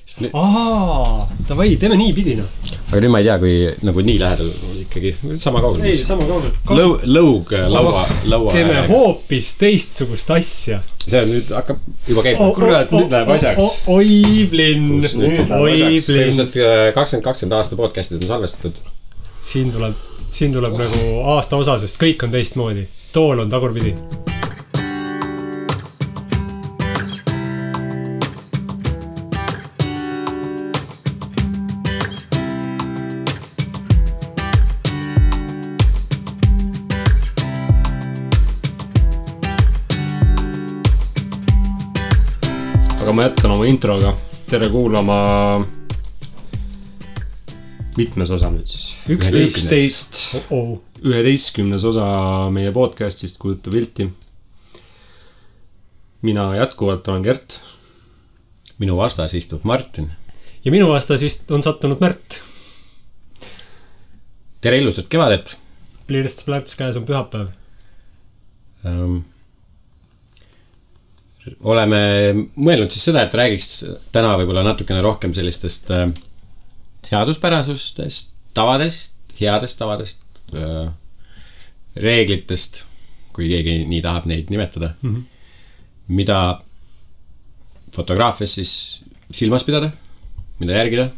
Davai, teeme nii pidina. Aga nüüd ma ei tea, kui nagu nii lähedal ikkagi sama kaugel. Ei, sama kaugel. Lõug laua. Teeme hoopis teistsugust asja. See nüüd hakkab juba käima. Kurat, nüüd läheb asjaks. Oiblin. Põhimõtteliselt 2020 aasta podcastid on salvestatud. Siin tuleb nagu aasta osa, sest kõik on teistmoodi. Tool on tagurpidi. Aga ma jätkan oma introga. Tere kuulama mitmes osa nüüd siis? 11 osa meie podcastist Kujuta pilti. Mina jätkuvalt olen Gert. Minu vastas istub Martin. Ja minu vastas on sattunud Märt. Tere ilusat kevadet. Pliirsts plärts käes on pühapäev. Oleme mõelnud siis seda, et räägiks täna võib-olla natukene rohkem sellistest seaduspärasustest, tavadest, headest tavadest, reeglitest, kui keegi nii tahab neid nimetada, mida fotograafias siis silmas pidada, mida järgida,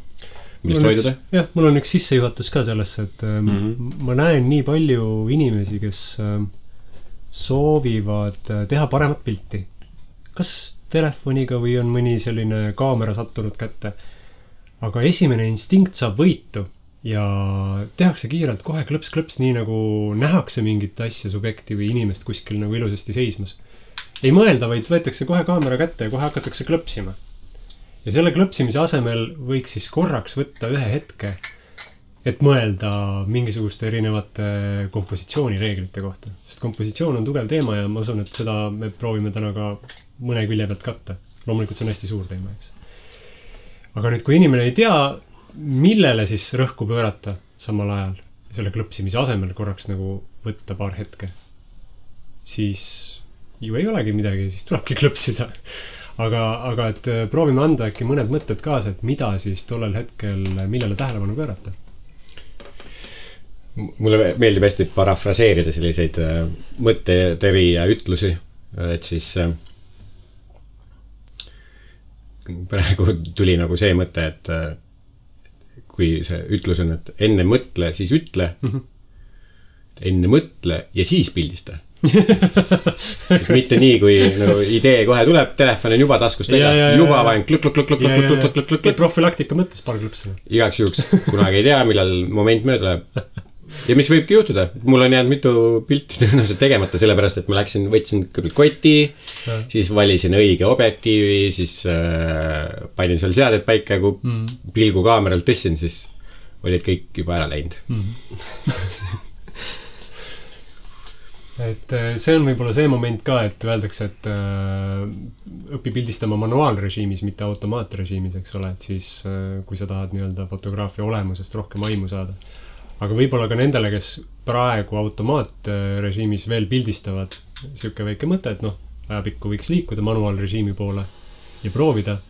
millest hoiduda. Jah, mul on üks sissejuhatus ka sellesse, et ma näen nii palju inimesi, kes soovivad teha paremat pilti. Kas telefoniga või on mõni selline kaamera sattunud kätte. Aga esimene instinkt saab võitu ja tehakse kiirelt kohe klõps, nii nagu nähakse mingit asja, subjekti või inimest kuskil nagu ilusasti seismas. Ei mõelda, vaid võetakse kohe kaamera kätte ja kohe hakatakse klõpsima. Ja selle klõpsimise asemel võiks siis korraks võtta ühe hetke, et mõelda mingisuguste erinevate kompositsioonireeglite kohta. Sest kompositsioon on tugev teema ja ma usun, et seda me proovime täna ka mõne külje pealt katta. Loomulikult see on hästi suur teema, eks. Aga nüüd, kui inimene ei tea, millele siis rõhku pöörata samal ajal, selle klõpsimise asemel korraks nagu võtta paar hetke, siis ju ei olegi midagi, siis tulebki klõpsida. Aga et proovime anda äkki mõned mõtted kaasa, et mida siis tollel hetkel, millele tähelepanu pöörata. Mulle meeldib hästi parafraseerida selliseid mõtteteri ja ütlusi, et siis praegu tuli nagu see mõte, et kui see ütlus on, et enne mõtle, siis ütle, enne mõtle ja siis pildista. Mitte nii, kui nagu idee kohe tuleb, telefon on juba taskust väljas, juba vaen klõk. Profülaktika mõttes paar klõpsina. Igaks juhuks, kunagi ei tea, millal moment mööda läheb. Ja mis võibki juhtuda, mul on jäänud mitu pilti tõenäoliselt tegemata, sellepärast, et ma võtsin kõigepealt koti, siis valisin õige objektiivi, siis panin seal seaded paika, kui pilgu kaameralt tõssin, siis olid kõik juba ära läinud. Et see on võib-olla see moment ka, et öeldakse, et õpi pildistama manuaalrežiimis, mitte automaatrežiimis, eks ole, et siis kui sa tahad nii-öelda fotograafia olemusest rohkem aimu saada. Aga võib-olla ka nendele, kes praegu automaatrežiimis veel pildistavad, siuke väike mõte, et ajapikku võiks liikuda manuaalrežiimi poole ja proovida,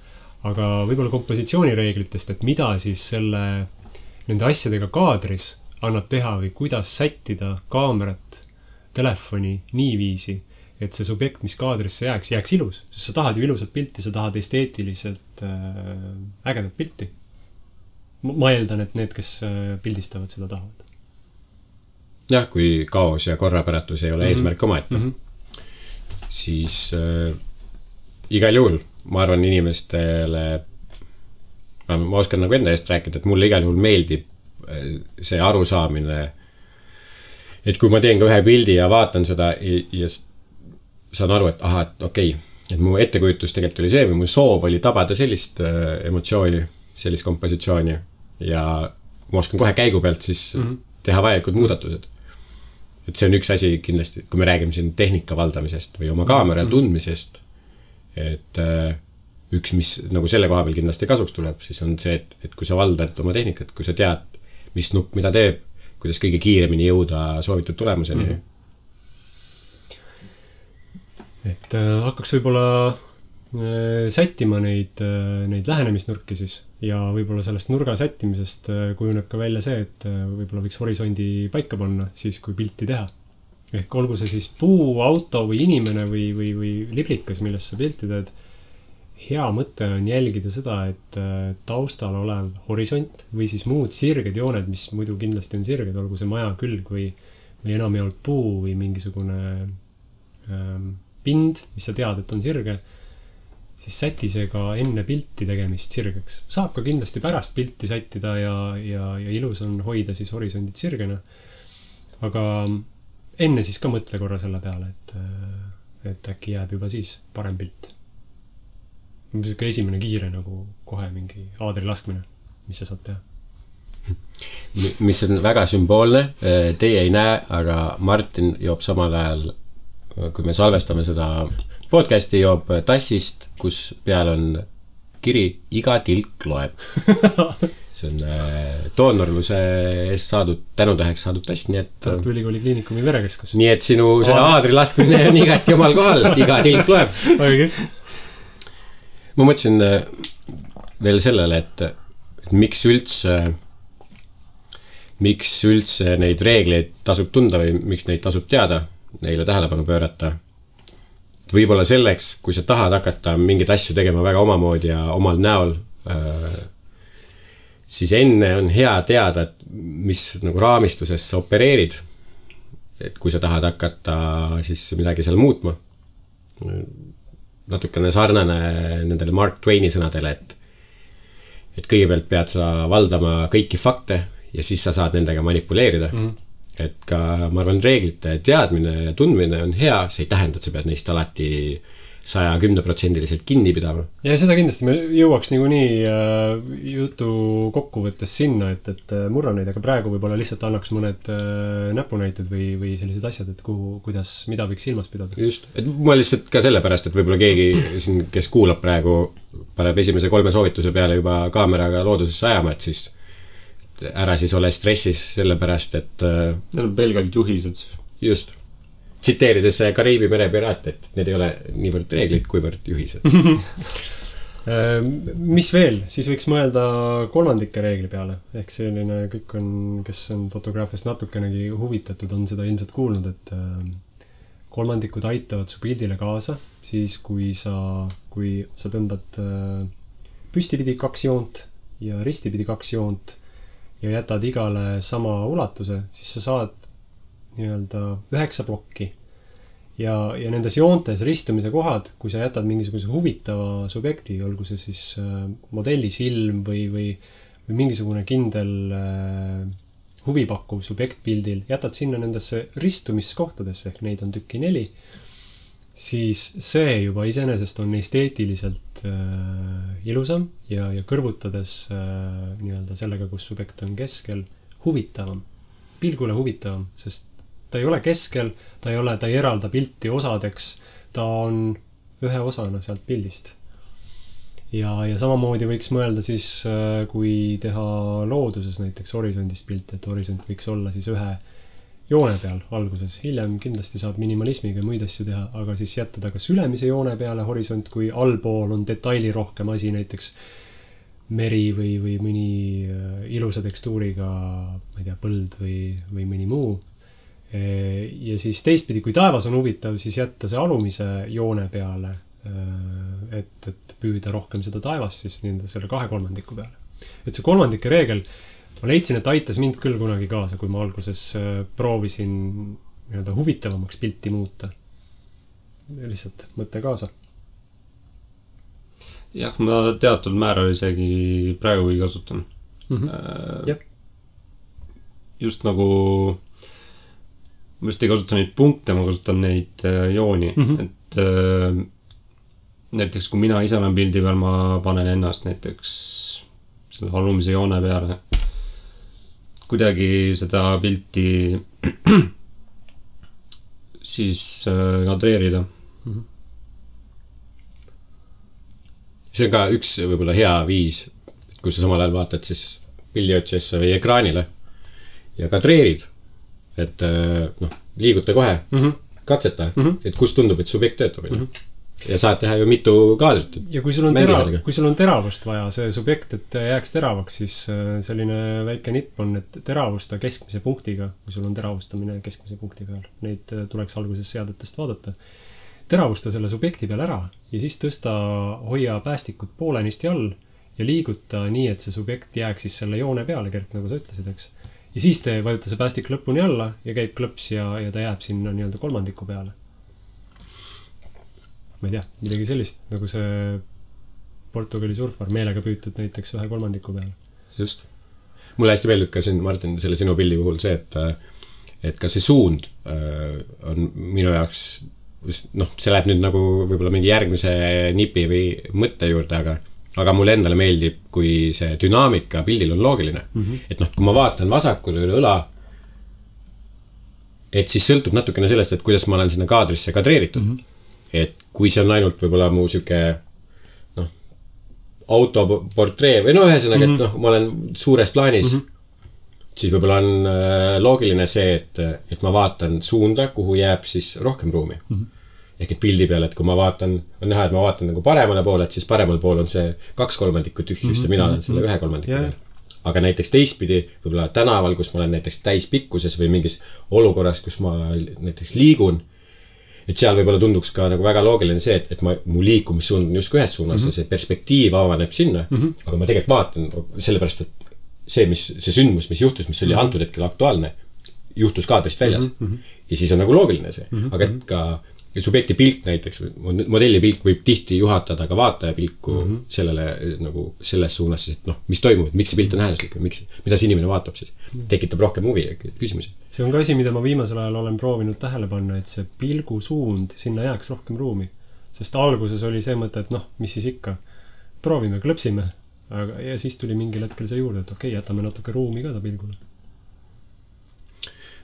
aga võib-olla kompositsioonireeglitest, et mida siis nende asjadega kaadris annab teha või kuidas sättida kaamerat, telefoni niiviisi, et see subjekt, mis kaadrisse jääks ilus, sest sa tahad ju ilusat pilti, sa tahad esteetiliselt ägedat pilti. Ma eeldan, et need, kes pildistavad, seda tahavad. Jah, kui kaos ja korrapäratus ei ole eesmärk omaette, siis igal juhul, ma arvan inimestele, ma oskan nagu enda eest rääkida, et mulle igal juhul meeldib see arusaamine, et kui ma teen ka ühe pildi ja vaatan seda ja saan aru, et et okei, et mu ettekujutus tegelikult oli see või mu soov oli tabada sellist emotsiooni, sellist kompositsiooni ja ma oskan kohe käigu pealt siis teha vajalikud muudatused. Et see on üks asi kindlasti, kui me räägime siin tehnika valdamisest või oma kaamera tundmisest, et üks, mis nagu selle koha peal kindlasti kasuks tuleb, siis on see, et kui sa valdad oma tehnikat, kui sa tead, mis nupp mida teeb, kuidas kõige kiiremini jõuda soovitud tulemuseni. Et hakkaks võib-olla sättima neid lähenemisnurki siis ja võib-olla sellest nurga sättimisest kujuneb ka välja see, et võib-olla võiks horisondi paika panna siis, kui pilti teha. Ehk olgu see siis puu, auto või inimene või liblikas, millest sa pilti teed. Hea mõte on jälgida seda, et taustal olev horisont või siis muud sirged jooned, mis muidu kindlasti on sirged, olgu see maja külg või enamjaolt puu või mingisugune pind, mis sa tead, et on sirge, siis säti see ka enne pilti tegemist sirgeks. Saab ka kindlasti pärast pilti sättida ja ilus on hoida siis horisondid sirgena. Aga enne siis ka mõtle korra selle peale, et äkki jääb juba siis parem pilt. Esimene kiire nagu kohe mingi aadri laskmine, mis sa saad teha. Mis on väga sümboolne, teie ei näe, aga Martin joob samal ajal, kui me salvestame seda podcasti, joob tassist, kus peal on kiri iga tilk loeb. See on doonorluse eest saadud, tänutäheks saadud tass, nii et Tartu Ülikooli Kliinikumi verekeskus. Nii et sinu selle aadri laskmine on igati omal kohal, iga tilk loeb. Okay. Ma mõtlesin veel sellele, et miks üldse neid reegleid tasub tunda või miks neid tasub teada, neile tähelepanu pöörata. Võib-olla selleks, kui sa tahad hakata mingeid asju tegema väga omamoodi ja omal näol, siis enne on hea teada, et mis nagu raamistuses sa opereerid. Et kui sa tahad hakata siis midagi seal muutma. Natukene sarnane nendele Mark Twaini sõnadele, et kõigepealt pead sa valdama kõiki fakte ja siis sa saad nendega manipuleerida. Et ka, ma arvan, reeglite teadmine ja tundmine on hea, see ei tähenda, et sa pead neist alati 110% kinni pidama. Ja seda kindlasti me jõuaks niikuinii jutu kokkuvõttes sinna, et murra neid, aga praegu võib-olla lihtsalt annaks mõned näpunäited või sellised asjad, et kuidas, mida võiks silmas pidada. Just, et ma lihtsalt ka sellepärast, et võib-olla keegi siin, kes kuulab praegu, paneb esimese 3 soovituse peale juba kaameraga loodusesse ajama, et siis ära siis ole stressis sellepärast, et need on pelgalt juhised. Just. Tsiteerides Kariibi mere piraate, et need ei ole niivõrd reeglid, kuivõrd juhised. Mis veel? Siis võiks mõelda kolmandike reegli peale. Ehk selline kõik on, kes on fotograafiast natukenegi huvitatud, on seda ilmselt kuulnud, et kolmandikud aitavad su pildile kaasa, siis kui sa tõmbad püstipidi 2 joont ja ristipidi 2 joont ja jätad igale sama ulatuse, siis sa saad nii-öelda 9 plokki. Ja nendes joontes ristumise kohad, kui sa jätad mingisuguse huvitava subjekti, olgu see siis modelli silm või mingisugune kindel huvipakkuv subjekt pildil, jätad sinna nendesse ristumiskohtadesse, ehk neid on tükki 4, siis see juba iseenesest on esteetiliselt ilusam ja kõrvutades nii-öelda sellega, kus subjekt on keskel, huvitavam, pilgule huvitavam, sest ta ei ole keskel, ta ei eralda pilti osadeks, ta on ühe osana sealt pildist. Ja samamoodi võiks mõelda siis, kui teha looduses näiteks horisondist pilti, et horisont võiks olla siis ühe joone peal alguses. Hiljem kindlasti saab minimalismiga muid asju teha, aga siis jätta ta kas ülemise joone peale horisont, kui allpool on detaili rohkem asi, näiteks meri või mõni ilusa tekstuuriga, ma ei tea, põld või mõni muu. Ja siis teistpidi, kui taevas on huvitav, siis jätta see alumise joone peale, et püüda rohkem seda taevast siis selle 2/3 peale. Et see kolmandike reegel, ma leidsin, et aitas mind küll kunagi kaasa, kui ma alguses proovisin nii-öelda huvitavamaks pilti muuta. Lihtsalt mõte kaasa. Jah, ma teatud määral isegi praegu ei kasutan. Just nagu ma just ei kasuta neid punkte, ma kasutan neid jooni. Et näiteks kui mina ise olen pildi peal, ma panen ennast näiteks selle alumise joone peale. Kuidagi seda pilti siis kadreerida. See on ka üks võib-olla hea viis, kus sa samal ajal vaatad siis pildiotsesse või ekraanile ja kadreerid. Et liiguta kohe, katseta, et kus tundub, et subjekt töötab. ja saad teha ju mitu kaadrit. Ja kui sul on teravust vaja, see subjekt, et jääks teravaks, siis selline väike nipp on, et teravusta keskmise punktiga, kui sul on teravustamine keskmise punkti peal. Neid tuleks alguses seadetest vaadata. Teravusta selle subjekti peal ära ja siis tõsta, hoia päästikut poolenisti all ja liiguta nii, et see subjekt jääks siis selle joone peale, Gert, nagu sa ütlesid, eks. Ja siis te vajuta see päästik lõpuni alla ja käib klõps ja ta jääb sinna nii-öelda kolmandiku peale. Ma ei tea, midagi sellist, nagu see Portugali surfar meelega püütud näiteks 1/3 peale. Just. Mulle hästi meeldib ka siin, Martin, selle sinu pildi puhul see, et ka see suund on minu jaoks, noh, see läheb nüüd nagu võib-olla mingi järgmise nipi või mõtte juurde, aga mulle endale meeldib, kui see dünaamika pildil on loogiline. Et noh, kui ma vaatan vasakule üle õla, et siis sõltub natukene sellest, et kuidas ma olen sinna kaadrisse kadreeritud. Et kui see on ainult võib-olla mu süke autoportree või ühesõnaga, et noh, ma olen suures plaanis, siis võib-olla on loogiline see, et ma vaatan suunda, kuhu jääb siis rohkem ruumi. Ehk et pildi peal, et kui ma vaatan, on näha, et ma vaatan nagu paremale poole, et siis paremal pool on see 2/3 tühjust ja mina olen selle 1/3 peal. Aga näiteks teistpidi, võib-olla tänaval, kus ma olen näiteks täispikkuses või mingis olukorras, kus ma näiteks liigun, et seal võib-olla tunduks ka nagu väga loogiline see, et mu liikumissuund on just ühes suunas ja see perspektiiv avaneb sinna, aga ma tegelikult vaatan sellepärast, et see sündmus, mis juhtus, mis oli antud hetkel aktuaalne, juhtus kaadrist väljas. Ja siis on nagu loogiline see. Aga et ka subjekti pilk näiteks, modelli pilk võib tihti juhatada ka vaataja pilku sellele nagu selles suunas, et noh, mis toimub, miks see pilt on äärmuslik või mida see inimene vaatab siis, tekitab rohkem huvi ja küsimusi. See on ka asi, mida ma viimasel ajal olen proovinud tähele panna, et see pilgu suund, sinna jääks rohkem ruumi. Sest alguses oli see mõte, et noh, mis siis ikka, proovime, klõpsime, ja siis tuli mingil hetkel see juurde, et okei, jätame natuke ruumi ka ta pilgule.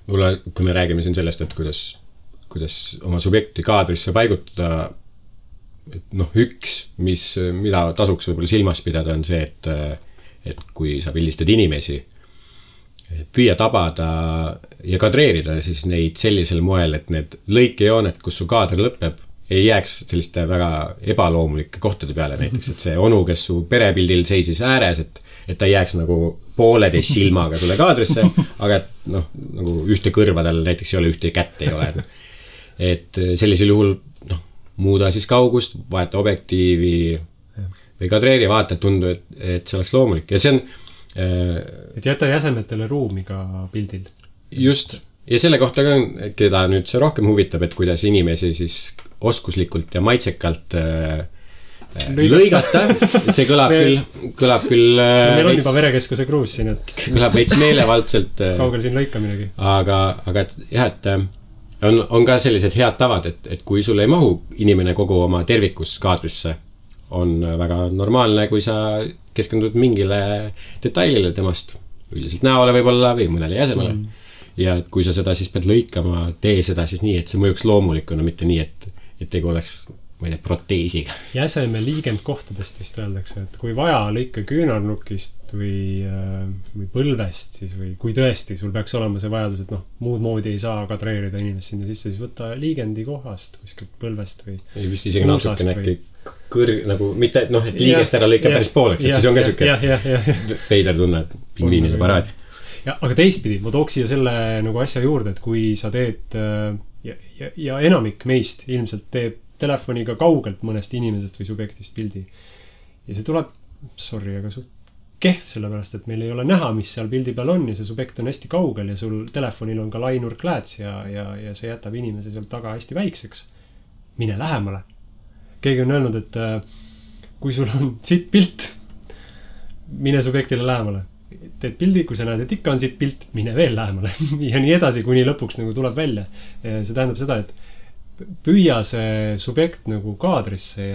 Mulle, kui me räägime siin sellest, et kuidas oma subjekti kaadrisse paigutada, et noh, mida tasuks võib-olla silmas pidada, on see, et kui sa pildistad inimesi, püüa tabada ja kadreerida siis neid sellisel moel, et need lõikejoonet, kus su kaadr lõpeb, ei jääks selliste väga ebaloomulike kohtade peale näiteks, et see onu, kes su perepildil seisis ääres, et ta jääks nagu pooleteist silmaga sulle kaadrisse, aga et noh, nagu ühte kõrvadel näiteks ei ole, ühte kätt ei ole. Et sellisel juhul noh, muuda siis kaugust, vaeta objektiivi või kadreeri, vaata, et tundu, et see oleks loomulik. Ja see on et jäta jäsemetele ruumi ka pildil. Just. Ja selle kohta ka, keda nüüd see rohkem huvitab, et kuidas inimesi siis oskuslikult ja maitsekalt lõigata. See kõlab küll meil on juba verekeskuse kruus siin, et kõlab veits meelevaldselt kaugel siin lõikaminegi. Aga et jah, et on ka sellised head tavad, et kui sul ei mahu inimene kogu oma tervikus kaadrisse, on väga normaalne, kui sa keskendud mingile detailile temast, üldiselt näole võib-olla või mõnele jäsemale. Ja kui sa seda siis pead lõikama, tee seda siis nii, et see mõjuks loomulikuna, mitte nii, et tegu oleks, ma ei tea, proteesiga. Jäseme liigend kohtadest vist öeldakse, et kui vaja lõika küünarnukist või põlvest, siis või kui tõesti sul peaks olema see vajadus, et noh, muud moodi ei saa kadreerida inimest sinna sisse, siis võtta liigendi kohast, kuskilt põlvest või ei, vist isegi natuke näkki nagu, mitte, et noh, et liigest ära lõika päris pooleks, et siis on ka süke peider tunne, et pingviinide paraad. Aga teistpidi, ma tooks siia selle nagu asja juurde, et kui sa teed ja enamik meist ilmselt teeb telefoniga kaugelt mõnest inimesest või subjektist pildi. Ja see tuleb, aga suht kehv, sellepärast, et meil ei ole näha, mis seal pildi peal on ja see subjekt on hästi kaugel ja sul telefonil on ka lainurklääts ja see jätab inimese seal taga hästi väikseks. Mine lähemale. Keegi on öelnud, et kui sul on siit pilt, mine subjektile lähemale. Teed pildi, kui sa näed, et ikka on siit pilt, mine veel lähemale. Ja nii edasi, kuni lõpuks nagu tuleb välja. See tähendab seda, et püüa see subjekt nagu kaadrisse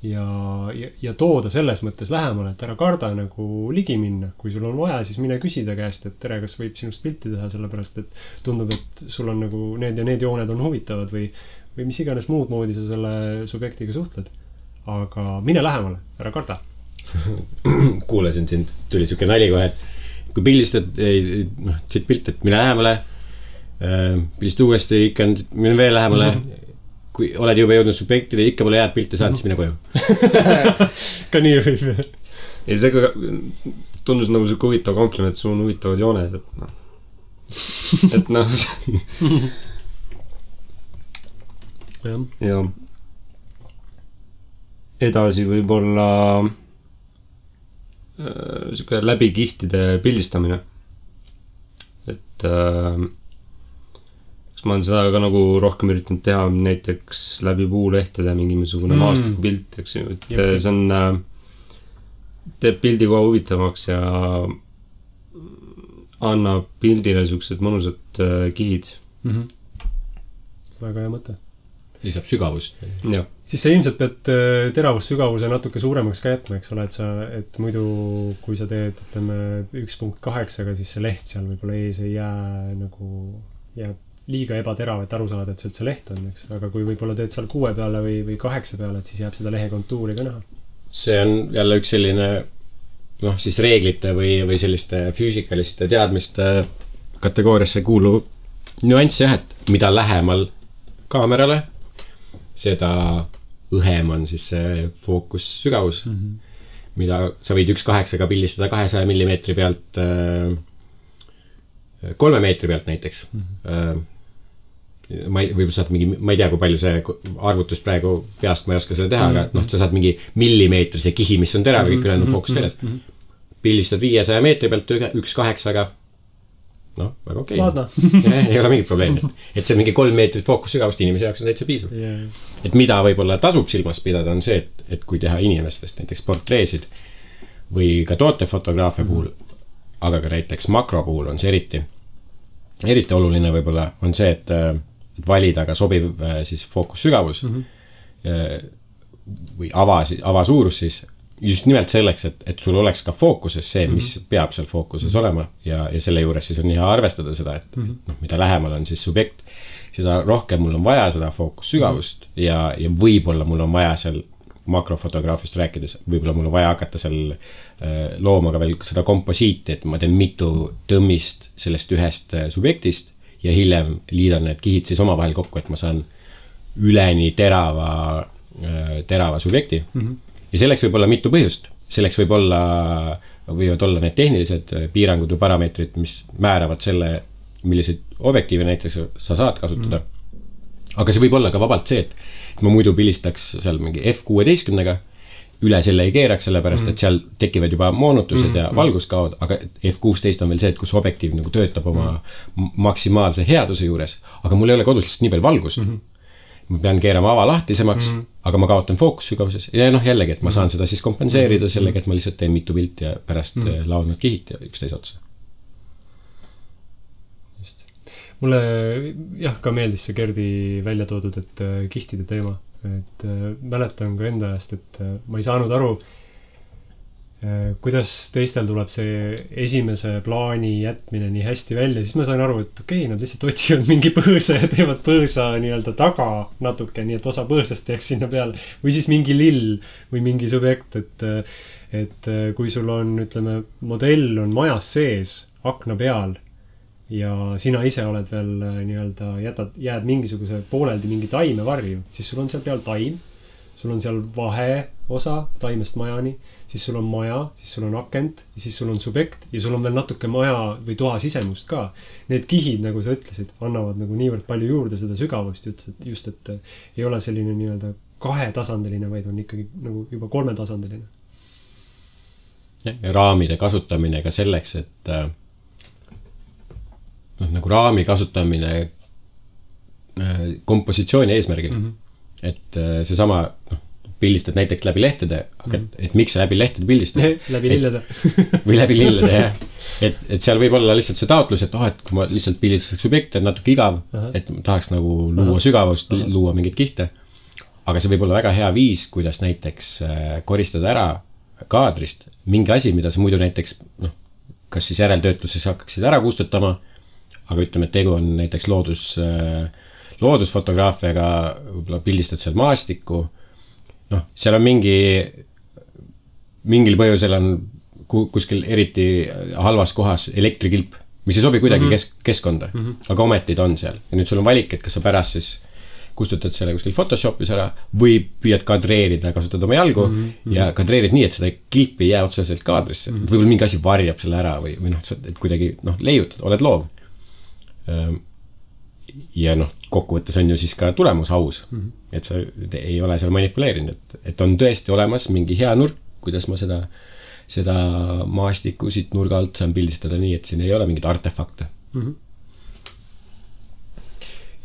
ja tooda selles mõttes lähemale, et ära karda nagu ligi minna. Kui sul on vaja, siis mine küsida käest, et tere, kas võib sinust pilti teha, sellepärast, et tundub, et sul on nagu need ja need jooned on huvitavad või mis iganes muud moodi sa selle subjektiga suhtled. Aga mine lähemale, ära karda. Kuulasin sind, tuli siuke nali kohe, et kui pildistad, siit pilt, et mine lähemale, pildist uuesti ikka, mine veel lähemale kui oled juba jõudnud subjektile, ikka pole head pilti saanud, siis mine koju. Ka nii võib. Ei, see tundus nagu see huvitav kompliment, sul on huvitavad jooned, et noh. Ja edasi võib-olla siuke läbi kihtide pildistamine. Et ma olen seda ka nagu rohkem üritanud teha näiteks läbi puulehtede mingisugune maastikupilt, eks ju, et see on teeb pildi kohe huvitavaks ja annab pildile siuksed mõnusad kihid. Väga hea mõte. Lisab sügavust. Ja. Siis sa ilmselt pead teravussügavuse natuke suuremaks ka jätma, eks ole, et muidu kui sa teed, ütleme 1.8, siis see leht seal võib-olla ees ei jääb liiga ebaterav, et aru saada, et see üldse leht on, eks. Aga kui võib-olla teed seal 6 peale või 8 peale, et siis jääb seda lehe kontuuri ka näha. See on jälle üks selline siis reeglite või selliste füüsikaliste teadmiste kategooriasse kuuluv nüanss jah, et mida lähemal kaamerale, seda õhem on siis see fookussügavus, mida sa võid 1.8-ga pildistada 200 millimeetri pealt 3 meetri pealt näiteks. Võib-olla saad mingi, ma ei tea, kui palju see arvutus praegu peast, ma ei oska seda teha, aga sa saad mingi millimeetrise kihi, mis on terav, kõik ülejäänud fookus teles. Pildistad 500 meetri pealt 1.8-ga. Väga okei. Ei ole mingit probleemi. Et see mingi 3 meetrit fookussügavust inimese jaoks on täitsa piisav. Et mida võib-olla tasub silmas pidada on see, et kui teha inimestest näiteks portreesid või ka tootefotograafia puhul, aga ka näiteks makro puhul on see eriti oluline võib-olla on see, et valida ka sobiv siis fookussügavus või avasuurus siis just nimelt selleks, et sul oleks ka fookuses see, mis peab seal fookuses olema ja selle juures siis on hea arvestada seda, et mida lähemal on siis subjekt, seda rohkem mul on vaja seda fookussügavust ja võib-olla mul on vaja seal makrofotograafist rääkides, võib-olla mul on vaja hakata seal looma ka veel seda komposiiti, et ma teen mitu tõmmist sellest ühest subjektist ja hiljem liidan need kihid siis omavahel kokku, et ma saan üleni terava subjekti. Ja selleks võib olla mitu põhjust. Selleks võivad olla need tehnilised piirangud või parameetrid, mis määravad selle, milliseid objektiive näiteks sa saad kasutada. Aga see võib olla ka vabalt see, et ma muidu pildistaks seal mingi F16-ga, üle selle ei keeraks, sellepärast, et seal tekivad juba moonutused ja valguskaod, aga F16 on veel see, et kus objektiiv nagu töötab oma maksimaalse headuse juures, aga mul ei ole kodus lihtsalt nii palju valgust. Ma pean keerama avalahtisemaks, aga ma kaotan fookussügavuses. Ja jällegi, et ma saan seda siis kompenseerida sellega, et ma lihtsalt teen mitu pilti ja pärast laon nad kihid ja üksteise otsa. Just. Mulle ka meeldis see Gerdi välja toodud, et kihtide teema. Et mäletan ka enda ajast, et ma ei saanud aru, kuidas teistel tuleb see esimese plaani jätmine nii hästi välja, siis ma sain aru, et okei, nad lihtsalt otsivad mingi põõsa ja teevad põõsa nii-öelda taga natuke, nii et osa põõsast jääks sinna peale või siis mingi lill või mingi subjekt, et kui sul on, ütleme, modell on majas sees akna peal ja sina ise oled veel nii-öelda jääd mingisuguse pooleldi mingi taime varju, siis sul on seal peal taim, sul on seal vahe osa taimest majani, siis sul on maja, siis sul on akent, siis sul on subjekt ja sul on veel natuke maja või toa sisemust ka. Need kihid, nagu sa ütlesid, annavad nagu niivõrd palju juurde seda sügavust just, et ei ole selline nii-öelda 2-tasandiline, vaid on ikkagi nagu juba 3-tasandiline. Ja raamide kasutamine ka selleks, et nagu raami kasutamine kompositsiooni eesmärgil. Et see sama pildistad näiteks läbi lehtede, aga et miks sa läbi lehtede pildistad? Läbi lillede. Või läbi lillede, jah. Et seal võib olla lihtsalt see taotlus, et et kui ma lihtsalt pildistaks subjekte, on natuke igav, et tahaks nagu luua sügavust, luua mingeid kihte. Aga see võib olla väga hea viis, kuidas näiteks koristada ära kaadrist mingi asi, mida sa muidu näiteks, kas siis järeltöötluses hakkaksid ära kustutama, aga ütleme, et tegu on näiteks loodusfotograafiaga, võib-olla pildistad seal maastikku, seal on mingil põhjusel on kuskil eriti halvas kohas elektrikilp, mis ei sobi kuidagi keskkonda, aga ometi ta on seal. Ja nüüd sul on valik, et kas sa pärast siis kustutad selle kuskil Photoshopis ära või püüad kadreerida, kasutad oma jalgu ja kadreerid nii, et seda kilpi ei jää otseselt kaadrisse. Võib-olla mingi asi varjab selle ära või et kuidagi leiutad, oled loov. Ja kokkuvõttes on ju siis ka tulemus aus, et sa ei ole seal manipuleerinud, et on tõesti olemas mingi hea nurk, kuidas ma seda maastikku siit nurga alt saan pildistada nii, et siin ei ole mingid artefakte.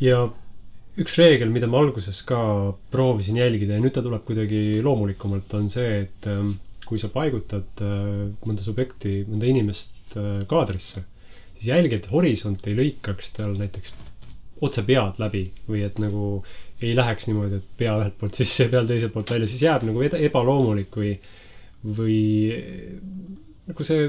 Ja üks reegel, mida ma alguses ka proovisin jälgida ja nüüd ta tuleb kuidagi loomulikumalt, on see, et kui sa paigutad mõnda subjekti, mõnda inimest kaadrisse, siis jälgi, et horisont ei lõikaks tal näiteks otse pead läbi või et nagu ei läheks niimoodi, et pea ühelt poolt sisse ja peal teiselt poolt välja, siis jääb nagu ebaloomulik või nagu see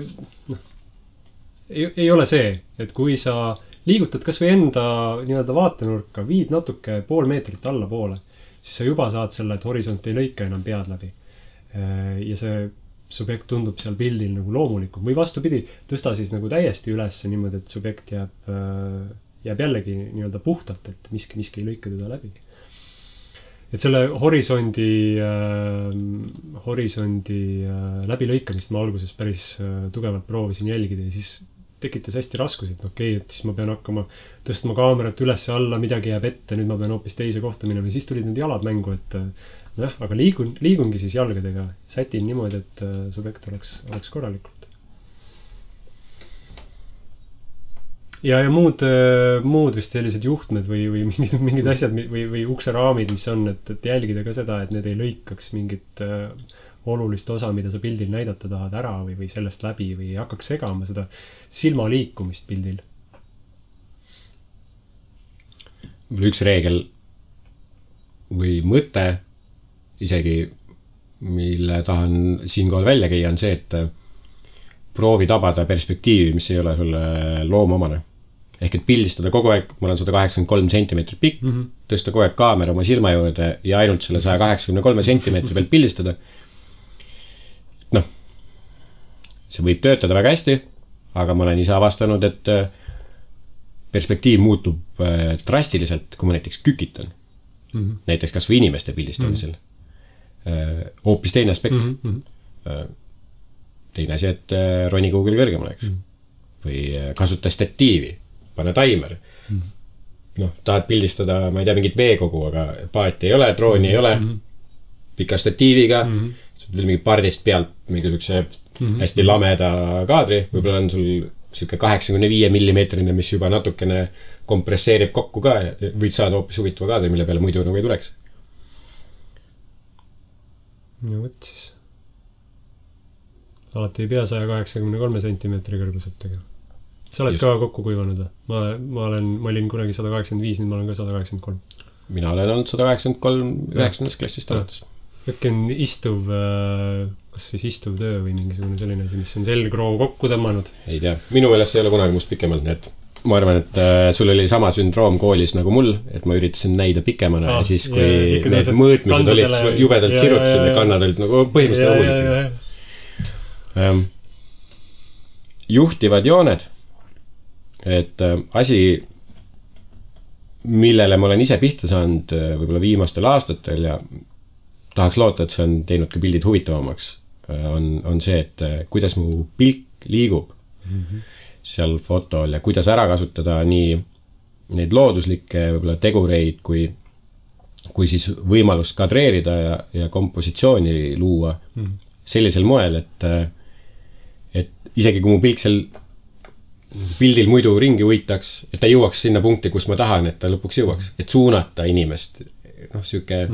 ei ole see, et kui sa liigutad kas või enda nii-öelda vaatenurka, viid natuke pool meetrit allapoole, siis sa juba saad selle, et horisont ei lõika enam pead läbi. Ja see subjekt tundub seal pildil nagu loomulikum. Või vastupidi, tõsta siis nagu täiesti üles niimoodi, et subjekt jääb jällegi nii-öelda puhtalt, et miski ei lõika teda läbi. Et selle horisondi läbilõikamist ma alguses päris tugevalt proovisin jälgida ja siis tekitas hästi raskusi, et okei, et siis ma pean hakkama tõstma kaamerat üles ja alla, midagi jääb ette, nüüd ma pean hoopis teise kohta minema ja siis tulid need jalad mängu, et aga liigungi siis jalgadega, sätin niimoodi, et subjekt oleks korralikult. Ja muud vist sellised juhtmed või mingid asjad või ukseraamid, mis on, et jälgida ka seda, et need ei lõikaks mingit olulist osa, mida sa pildil näidata tahad ära või sellest läbi või hakkaks segama seda silma liikumist pildil. Üks reegel või mõte isegi, mille tahan siinkohal välja käia, on see, et proovi tabada perspektiivi, mis ei ole sulle loomomane. Ehk et pildistada kogu aeg, mul on 183 sentimeetrit pikk, tõsta kogu aeg kaamera oma silma juurde ja ainult selle 183 sentimeetri pealt pildistada. See võib töötada väga hästi, aga ma olen ise avastanud, et perspektiiv muutub drastiliselt, kui ma näiteks kükitan. Näiteks kas või inimeste pildistamisel. Hoopis teine aspekt. Teine asi, et roni kuhugil kõrgemale, eks. Või kasuta statiivi, pane taimer. Tahad pildistada, ma ei tea, mingit veekogu, aga paati ei ole, drooni ei ole, pika statiiviga, veel mingi pardist pealt mingi hästi lameda kaadri, võib-olla on sul siuke 85 millimeetrine, mis juba natukene kompresseerib kokku ka ja võid saada hoopis huvitava kaadri, mille peale muidu nagu ei tuleks. Ja võt siis. Alati ei pea 183 sentimeetri kõrguselt tegema. Sa oled ka kokku kuivanud või? Ma olin kunagi 185, nüüd ma olen ka 183. Mina olen olnud 183 9. klassist alates. Äkki on kas siis istuv töö või mingisugune selline asi, mis on selgroov kokku tõmmanud? Ei tea. Minu meelest ei ole kunagi must pikemalt, nii et ma arvan, et sul oli sama sündroom koolis nagu mul, et ma üritasin näida pikemana ja siis, kui need mõõtmised olid jubedalt sirutasin ja kannad olid nagu põhimõtteliselt uusid. Juhtivad jooned, et asi, millele ma olen ise pihta saanud võib-olla viimastel aastatel ja tahaks loota, et see on teinud ka pildid huvitavamaks, on see, et kuidas mu pilk liigub seal fotol ja kuidas ära kasutada nii neid looduslikke võib-olla tegureid, kui siis võimalust kadreerida ja kompositsiooni luua sellisel moel, et isegi kui mu pilk seal pildil muidu ringi uitaks, et ta jõuaks sinna punkti, kus ma tahan, et ta lõpuks jõuaks, et suunata inimest. Siuke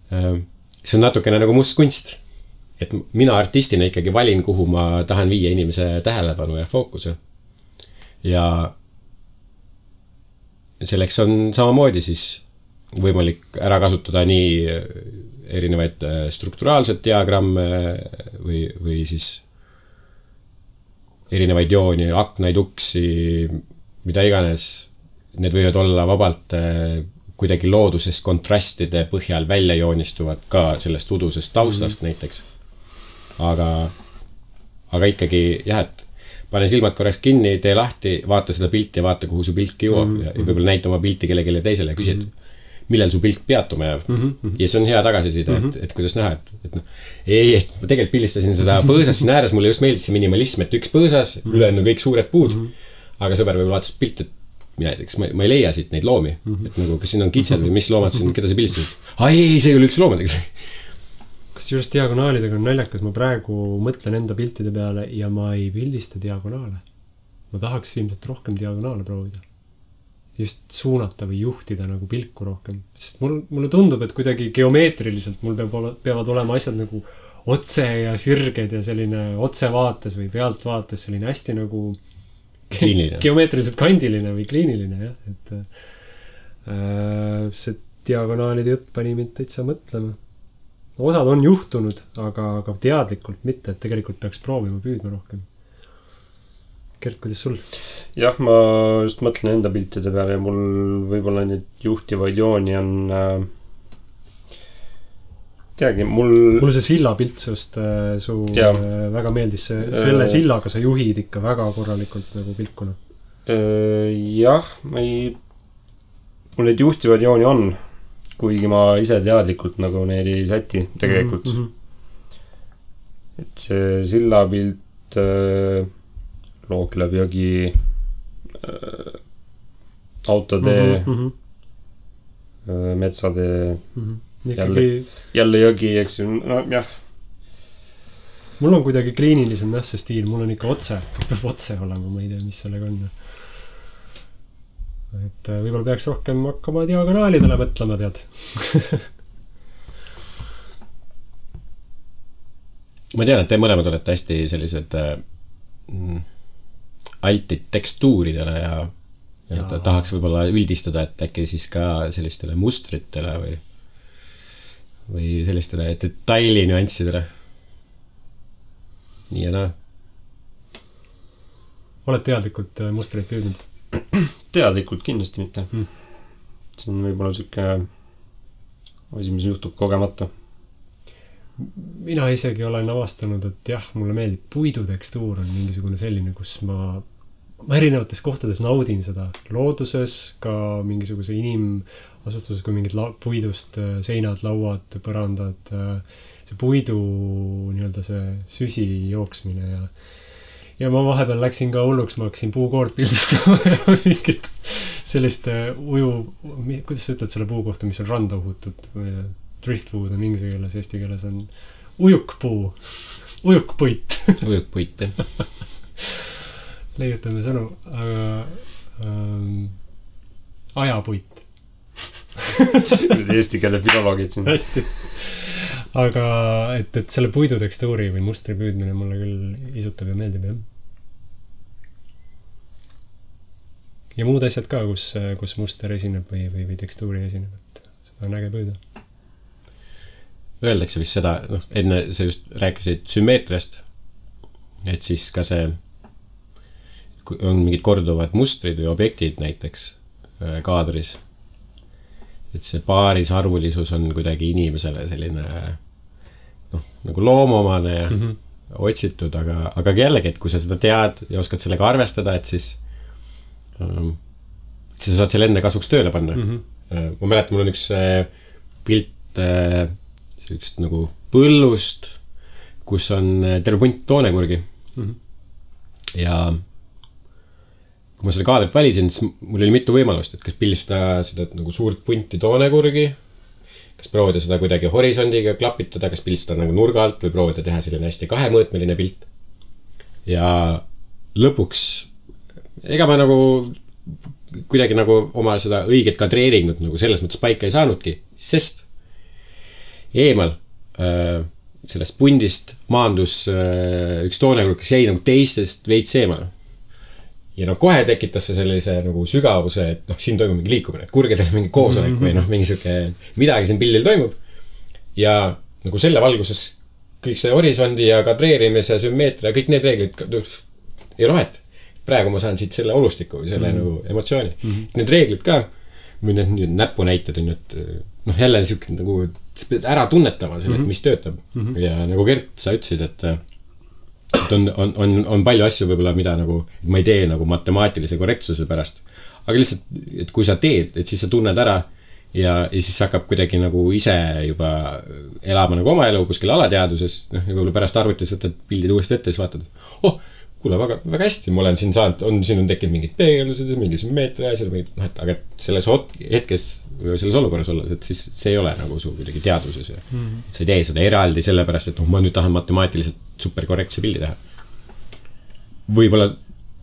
see on natukene nagu must kunst, et mina artistina ikkagi valin, kuhu ma tahan viia inimese tähelepanu ja fookuse. Ja selleks on samamoodi siis võimalik ära kasutada nii erinevaid strukturaalset diagramme või siis erinevaid jooni, aknaid, uksi, mida iganes. Need võivad olla vabalt kuidagi loodusest kontrastide põhjal välja joonistuvad ka sellest udusest taustast näiteks. Aga ikkagi jah, et pane silmad korraks kinni, tee lahti, vaata seda pilti ja vaata, kuhu su pilk jõuab ja võib-olla näita oma pilti kellelegi teisele ja küsi, millal su pilt peatuma jääb. Ja see on hea tagasiside, et kuidas näha, et noh, et ma tegelikult pildistasin seda põõsas siin ääres, mulle just meeldis see minimalism, et üks põõsas, ülejäänud kõik suured puud, aga sõber võib vaatas pilt, et mina näiteks, ma ei leia siit neid loomi, et nagu, kas siin on kitsed või mis loomad siin, keda sa pildistasid? Ei, see ei ole üks loomadega. Kusjuures diagonaalidega on naljakas, ma praegu mõtlen enda piltide peale ja ma ei pildista diagonaale. Ma tahaks ilmselt rohkem diagonaale proovida. Just suunata või juhtida nagu pilku rohkem. Sest mulle tundub, et kuidagi geomeetriliselt mul peavad olema asjad nagu otse ja sirged ja selline otsevaates või pealtvaates selline hästi nagu geomeetriliselt kandiline või kliiniline, jah. Et see diagonaalide jutt pani mind täitsa mõtlema. Osad on juhtunud, aga teadlikult mitte, et tegelikult peaks proovima püüdma rohkem. Gert, kuidas sul? Jah, ma just mõtlen enda piltide peale ja mul võib-olla neid juhtivaid jooni on teagi, mulle see silla pilt sust väga meeldis. Selle sillaga sa juhid ikka väga korralikult nagu pilkuna. Jah, mul neid juhtivaid jooni on, kuigi ma ise teadlikult nagu neid ei säti tegelikult. Et see silla pilt Looklev jõgi, autotee, metsatee, jälle jõgi, eks ju, no jah. Mul on kuidagi kliinilisem jah see stiil, mul on ikka otse, peab otse olema, ma ei tea, mis sellega on. Et võib-olla peaks rohkem hakkama diagonaalidele mõtlema, tead. Ma tean, et te mõlemad olete hästi sellised altid tekstuuridele ja tahaks võib-olla üldistada, et äkki siis ka sellistele mustritele või sellistele detaili nüanssidele. Nii ja naa. Oled teadlikult mustreid püüdnud? Teadlikult kindlasti mitte. See on võib-olla siuke asi, mis juhtub kogemata. Mina isegi olen avastanud, et jah, mulle meeldib puidutekstuur on mingisugune selline, kus ma erinevates kohtades naudin seda looduses, ka mingisuguse inimasustuses, kui mingid puidust seinad, lauad, põrandad, see puidu nii-öelda see süsi jooksmine ja ma vahepeal läksin ka hulluks, ma hakkasin puukoort pildistama ja mingit sellist kuidas sa ütled selle puu kohta, mis on randa uhutud või driftwood on inglise keeles, eesti keeles on ujukpuu, ujukpuit. Ujukpuit, jah. Leiutame sõnu, aga ajapuit. Eesti keele filoloogid siin. Hästi. Aga et selle puidutekstuuri või mustri püüdmine mulle küll isutab ja meeldib, jah. Ja muud asjad ka, kus muster esineb või tekstuuri esineb, et seda on äge püüda. Öeldakse vist seda, enne sa just rääkisid sümmeetriast, et siis ka see, on mingid korduvad mustrid või objektid näiteks kaadris, et see paarisarvulisus on kuidagi inimesele selline nagu loomomane ja otsitud, aga jällegi, et kui sa seda tead ja oskad sellega arvestada, et siis sa saad selle enne kasuks tööle panna. Ma mäletan, mul on üks pilt sellist nagu põllust, kus on terve punt toonekurgi. Ja kui ma seda kaadrit valisin, siis mul oli mitu võimalust, et kas pildistada seda nagu suurt punti toonekurgi, kas proovida seda kuidagi horisondiga klapitada, kas pildistada nagu nurga alt või proovida teha selline hästi kahemõõtmeline pilt. Ja lõpuks, ega ma nagu kuidagi nagu oma seda õiget kadreeringut nagu selles mõttes paika ei saanudki, sest eemal sellest pundist maandus üks toonekurg, kes jäi nagu teistest veits eemal. Ja kohe tekitas see sellise nagu sügavuse, et siin toimub mingi liikumine, et kurgedel mingi koosolek või mingi siuke midagi siin pildil toimub. Ja nagu selle valguses kõik see horisondi ja kadreerimise, sümmeetria, kõik need reeglid ei ole vahet. Praegu ma saan siit selle olustiku või selle nagu emotsiooni. Need reeglid ka, või need näpunäited on, et jälle siuke nagu ära tunnetama selle, mis töötab. Ja nagu Gert, sa ütlesid, et on palju asju võib-olla, mida nagu ma ei tee nagu matemaatilise korrektsuse pärast. Aga lihtsalt, et kui sa teed, et siis sa tunned ära, ja siis hakkab kuidagi nagu ise juba elama nagu oma elu kuskil alateaduses, ja kui pärast arvutis võtad pildid uuesti ette, siis vaatad, kuule, väga hästi, ma olen siin saanud, siin on tekkinud mingid peegeldused ja mingid sümmeetria asjad, aga selles hetkes või selles olukorras olla, et siis see ei ole nagu su kuidagi teaduses ja sa ei tee seda eraldi sellepärast, et ma nüüd tahan matemaatiliselt superkorrektse pildi teha. Võib-olla,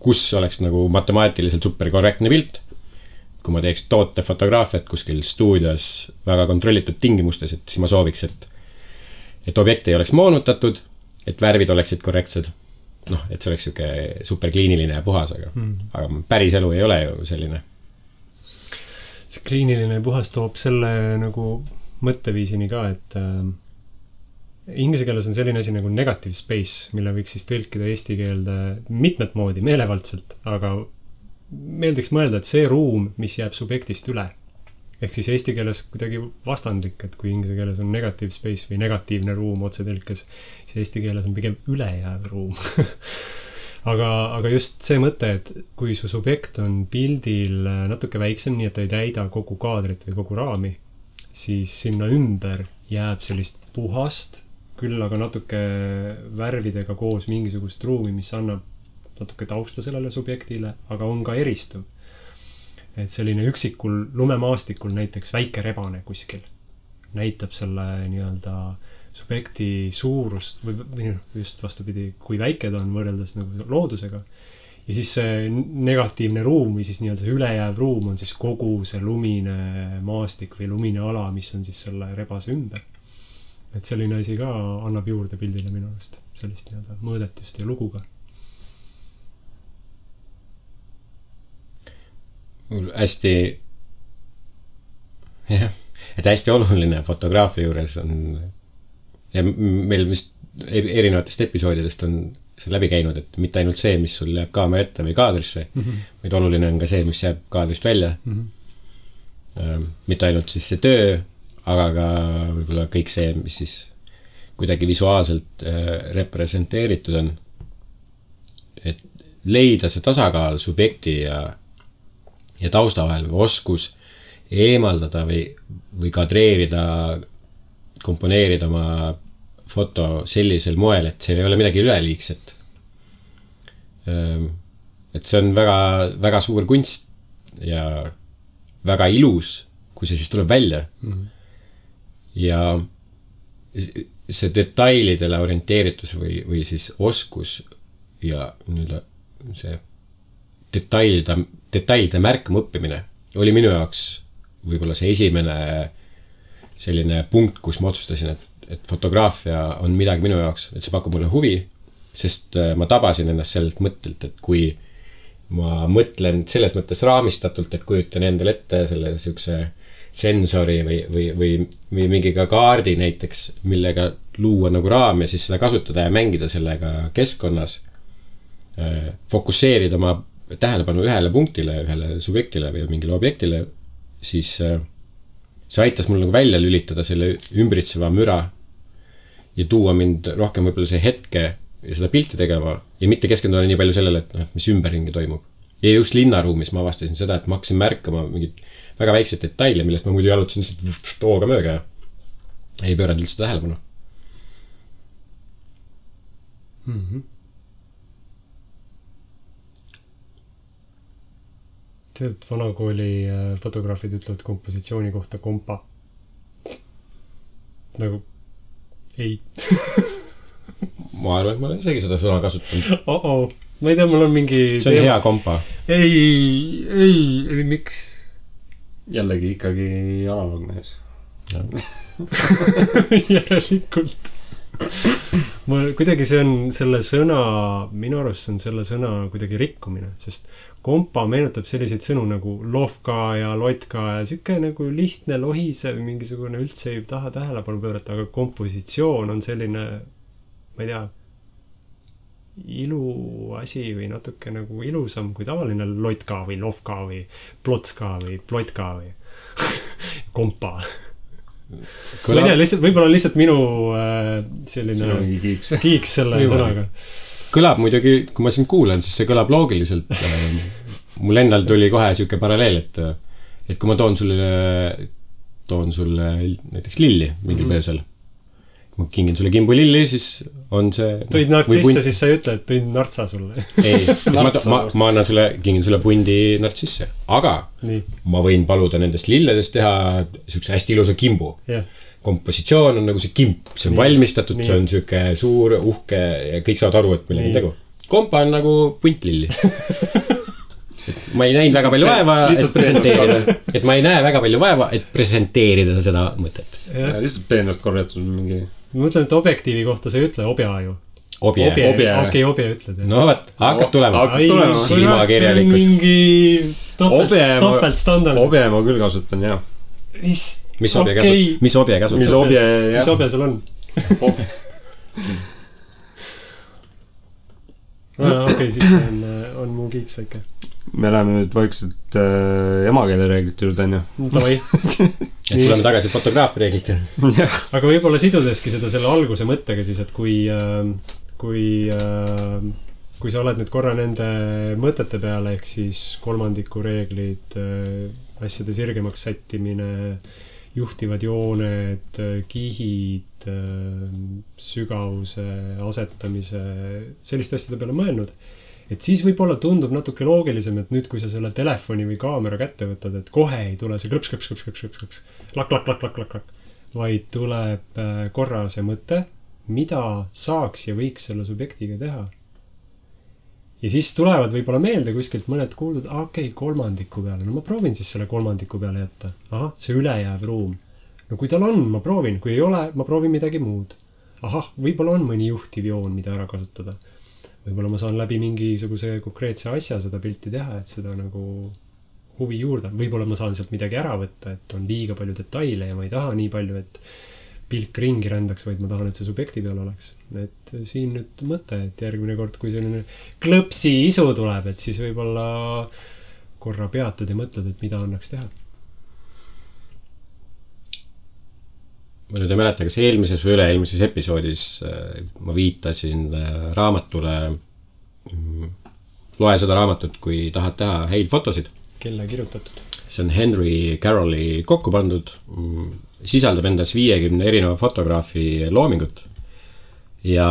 kus oleks nagu matemaatiliselt superkorrektne pilt, kui ma teeks tootefotograafiat kuskil stuudios väga kontrollitud tingimustes, et siis ma sooviks, et objekt ei oleks moonutatud, et värvid oleksid korrektsed. Et see oleks siuke superkliiniline ja puhas, aga päris elu ei ole ju selline. See kliiniline ja puhas toob selle nagu mõtteviisini ka, et inglise keeles on selline asi nagu negative space, mille võiks siis tõlkida eesti keelde mitmet moodi, meelevaldselt, aga meeldiks mõelda, et see ruum, mis jääb subjektist üle, ehk siis eesti keeles kuidagi vastandlik, et kui inglise keeles on negative space või negatiivne ruum otsetõlkes, siis eesti keeles on pigem ülejääv ruum. aga just see mõte, et kui su subjekt on pildil natuke väiksem, nii et ta ei täida kogu kaadrit või kogu raami, siis sinna ümber jääb sellist puhast, küll aga natuke värvidega koos mingisugust ruumi, mis annab natuke tausta sellele subjektile, aga on ka eristuv. Et selline üksikul lumemaastikul näiteks väike rebane kuskil näitab selle nii-öelda subjekti suurust või just vastupidi, kui väike ta on võrreldes nagu loodusega. Ja siis see negatiivne ruum või siis nii-öelda see ülejääv ruum on siis kogu see lumine maastik või lumine ala, mis on siis selle rebase ümber. Et selline asi ka annab juurde pildile minu arust sellist nii-öelda mõõdetust ja luguga. Hästi et hästi oluline fotograafia juures on ja meil vist erinevatest episoodidest on see läbi käinud, et mitte ainult see, mis sul jääb kaamera ette või kaadrisse, vaid oluline on ka see, mis jääb kaadrist välja. Mitte ainult siis see töö, aga ka võib-olla kõik see, mis siis kuidagi visuaalselt representeeritud on. Et leida see tasakaal subjekti ja tausta vahel või oskus eemaldada või kadreerida, komponeerida oma foto sellisel moel, et seal ei ole midagi üleliigset. Et see on väga, väga suur kunst ja väga ilus, kui see siis tuleb välja. Ja see detailidele orienteeritus või siis oskus ja see detailide märkama õppimine oli minu jaoks võib-olla see esimene selline punkt, kus ma otsustasin, et fotograafia on midagi minu jaoks, et see pakub mulle huvi, sest ma tabasin ennast sellelt mõttelt, et kui ma mõtlen selles mõttes raamistatult, et kujutan endale ette selle siukse sensori või mingi ka kaardi näiteks, millega luua nagu raam ja siis seda kasutada ja mängida sellega keskkonnas, fokusseerida oma tähelepanu ühele punktile, ühele subjektile või mingile objektile, siis see aitas mul nagu välja lülitada selle ümbritseva müra ja tuua mind rohkem võib-olla see hetke ja seda pilti tegema ja mitte keskenduda nii palju sellele, et mis ümberringi toimub. Ja just linnaruumis ma avastasin seda, et ma hakkasin märkama mingid väga väiksed detaile, millest ma muidu jalutasin lihtsalt tooga mööga ja ei pööranud üldse tähelepanu. Tead, vanakooli fotograafid ütlevad kompositsiooni kohta kompa. Nagu ei. Ma arvan, et ma olen isegi seda sõna kasutanud. Ma ei tea, mul on mingi... See on hea kompa. Ei, miks? Jällegi ikkagi analogmees. Järelikult. Kuidagi see on selle sõna, minu arust on selle sõna kuidagi rikkumine, sest kompa meenutab selliseid sõnu nagu lohka ja lotka ja siuke nagu lihtne lohisev, mingisugune üldse ei taha tähelepanu pöörata, aga kompositsioon on selline, ma ei tea, iluasi või natuke nagu ilusam kui tavaline lotka või lohka või plotska või plotka või kompa. Ma ei tea, lihtsalt, võib-olla lihtsalt minu selline kiiks selle sõnaga. Kõlab muidugi, kui ma sind kuulen, siis see kõlab loogiliselt. Mul endal tuli kohe siuke paralleel, et kui ma toon sulle toon sulle näiteks lilli mingil põhjusel. Ma kingin sulle kimbu lilli, siis on see... Tõid nartsisse, siis sa ei ütle, et tõin nartsa sulle. Ei, ma annan sulle, kingin sulle pundi nartsisse. Aga nii. Ma võin paluda nendest lilledest teha sükse hästi ilusa kimbu. Yeah. Kompositsioon on nagu see kimp, see on nii. Valmistatud, nii. See on süke suur, uhke ja kõik saavad aru, et millega tegu. Kompa on nagu punt lilli. Ma ei näinud väga palju vaeva, et presenteerida. Et ma ei näe väga palju vaeva, et presenteerida seda mõtet. Lihtsalt peenast korjatud mingi... Ma mõtlen, et objektiivi kohta sa ei ütle obja ju. Obje. Okei, obje ütled. No võt, hakkab tulema. Silmakirjalikkus. See on mingi topeltstandard. Obje ma küll kasutan, jah. Mis obje kasutab? Mis obje sul on? Okei, siis on mu kiiks väike. Me läheme nüüd vaikselt emakeele reeglite juurde, on ju? Tavai. Tuleme tagasi fotograafi reeglite. Aga võib-olla sidudeski seda selle alguse mõttega siis, et kui sa oled nüüd korra nende mõtete peale, ehk siis kolmandiku reeglid, asjade sirgemaks sättimine, juhtivad jooned, kihid, sügavuse asetamise, selliste asjade peale mõelnud. Et siis võib-olla tundub natuke loogilisem, et nüüd kui sa selle telefoni või kaamera kätte võtad, et kohe ei tule see klõps, lak, vaid tuleb korra see mõte, mida saaks ja võiks selle subjektiga teha. Ja siis tulevad võib-olla meelde kuskilt mõned kuuldud, okei, kolmandiku peale, no ma proovin siis selle kolmandiku peale jätta. Aha, see ülejääv ruum. No kui tal on, ma proovin, kui ei ole, ma proovin midagi muud. Ahah, võib-olla on mõni juhtiv joon, mida ära kasutada. Võib-olla ma saan läbi mingisuguse konkreetse asja seda pilti teha, et seda nagu huvi juurde. Võib-olla ma saan sealt midagi ära võtta, et on liiga palju detaile ja ma ei taha nii palju, et pilk ringi rändaks, vaid ma tahan, et see subjekti peal oleks. Et siin nüüd mõte, et järgmine kord, kui selline klõpsi isu tuleb, et siis võib-olla korra peatud ja mõtled, et mida annaks teha. Ma nüüd ei mäleta, kas eelmises või üle-eelmises episoodis ma viitasin raamatule, loe seda raamatut, kui tahad teha häid fotosid. Kelle kirjutatud? See on Henry Carrolli kokku pandud, sisaldab endas 50 erineva fotograafi loomingut. Ja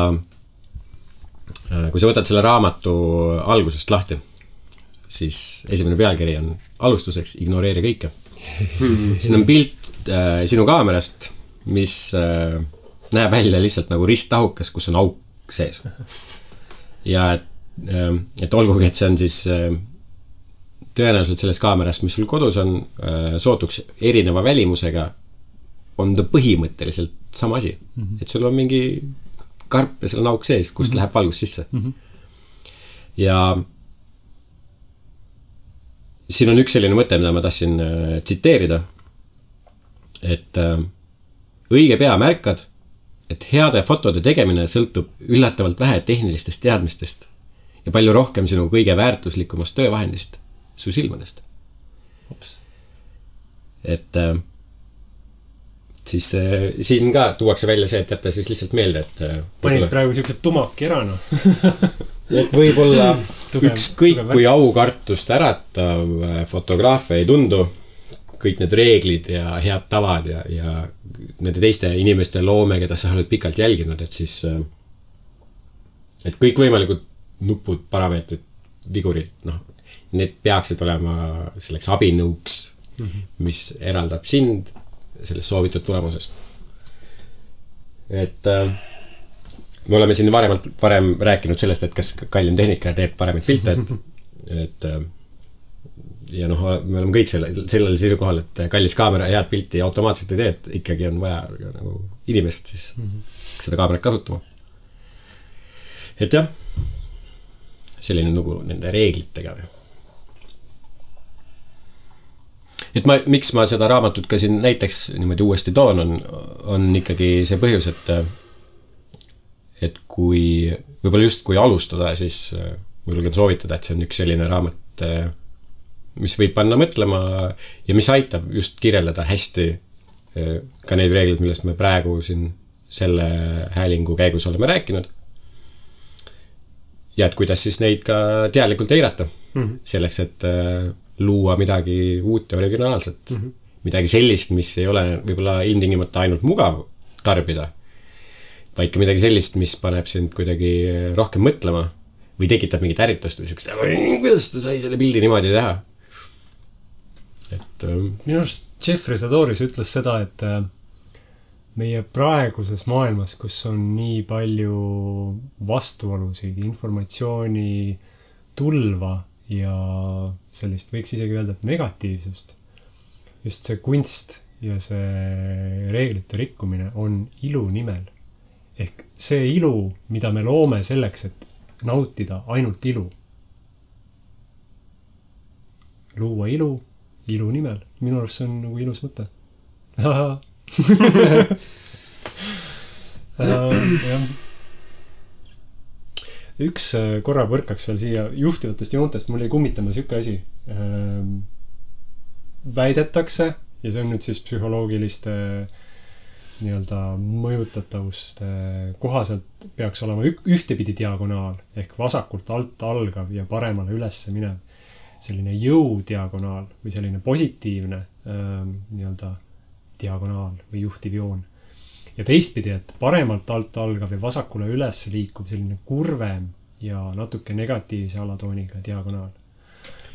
kui sa võtad selle raamatu algusest lahti, siis esimene pealkiri on alustuseks ignoreeri kõike. Siin on pilt sinu kaamerast, mis näeb välja lihtsalt nagu risttahukas, kus on auk sees. Ja et olgugi, et see on siis tõenäoliselt selles kaamerast, mis sul kodus on, sootuks erineva välimusega, on ta põhimõtteliselt sama asi. Et sul on mingi karp ja seal on auk sees, kust läheb valgus sisse. Ja siin on üks selline mõte, mida ma tahtsin tsiteerida, et õige pea märkad, et heade fotode tegemine sõltub üllatavalt vähe tehnilistest teadmistest ja palju rohkem sinu kõige väärtuslikumast töövahendist, su silmadest. Et siis siin ka tuuakse välja see, et jätta siis lihtsalt meelde, et panid praegu siuksed tumaki ära, no. Et võib-olla ükskõik kui aukartust äratav fotograafia ei tundu, kõik need reeglid ja head tavad ja nende teiste inimeste loome, keda sa oled pikalt jälginud, et siis et kõik võimalikud nupud, parameetrid, vigurid, noh, need peaksid olema selleks abinõuks, mis eraldab sind sellest soovitud tulemusest. Et me oleme siin varem rääkinud sellest, et kas kallim tehnika teeb paremaid pilte, et ja noh, me oleme kõik sellel seisukohal, et kallis kaamera head pilti automaatselt ei tee, et ikkagi on vaja nagu inimest siis seda kaamerat kasutama. Et jah, selline lugu nende reeglitega. Et miks ma seda raamatut ka siin näiteks niimoodi uuesti toon, on ikkagi see põhjus, et kui võib-olla just kui alustada, siis ma julgen soovitada, et see on üks selline raamat, mis võib panna mõtlema ja mis aitab just kirjeldada hästi ka neid reeglid, millest me praegu siin selle häälingu käigus oleme rääkinud. Ja et kuidas siis neid ka teadlikult eirata selleks, et luua midagi uut ja originaalset, midagi sellist, mis ei ole võib-olla ilmtingimata ainult mugav tarbida, vaid ka midagi sellist, mis paneb sind kuidagi rohkem mõtlema või tekitab mingit ärritust või sellist, kuidas ta sai selle pildi niimoodi teha. Et minu arust Jeffrey Sadoris ütles seda, et meie praeguses maailmas, kus on nii palju vastuolusid, informatsiooni tulva ja sellist, võiks isegi öelda, et negatiivsust, just see kunst ja see reeglite rikkumine on ilu nimel. Ehk see ilu, mida me loome selleks, et nautida ainult ilu. Luua ilu nimel. Minu arust see on nagu ilus mõte. Üks korra põrkaks veel siia juhtivatest joontest, mul jäi kummitama siuke asi. Väidetakse, ja see on nüüd siis psühholoogiliste nii-öelda mõjutatavuste kohaselt peaks olema ühtepidi diagonaal, ehk vasakult alt algav ja paremale ülesse minev. Selline jõudiagonaal või selline positiivne nii-öelda diagonaal või juhtiv joon. Ja teistpidi, et paremalt alt algav ja vasakule üles liikuv selline kurvem ja natuke negatiivse alatooniga diagonaal.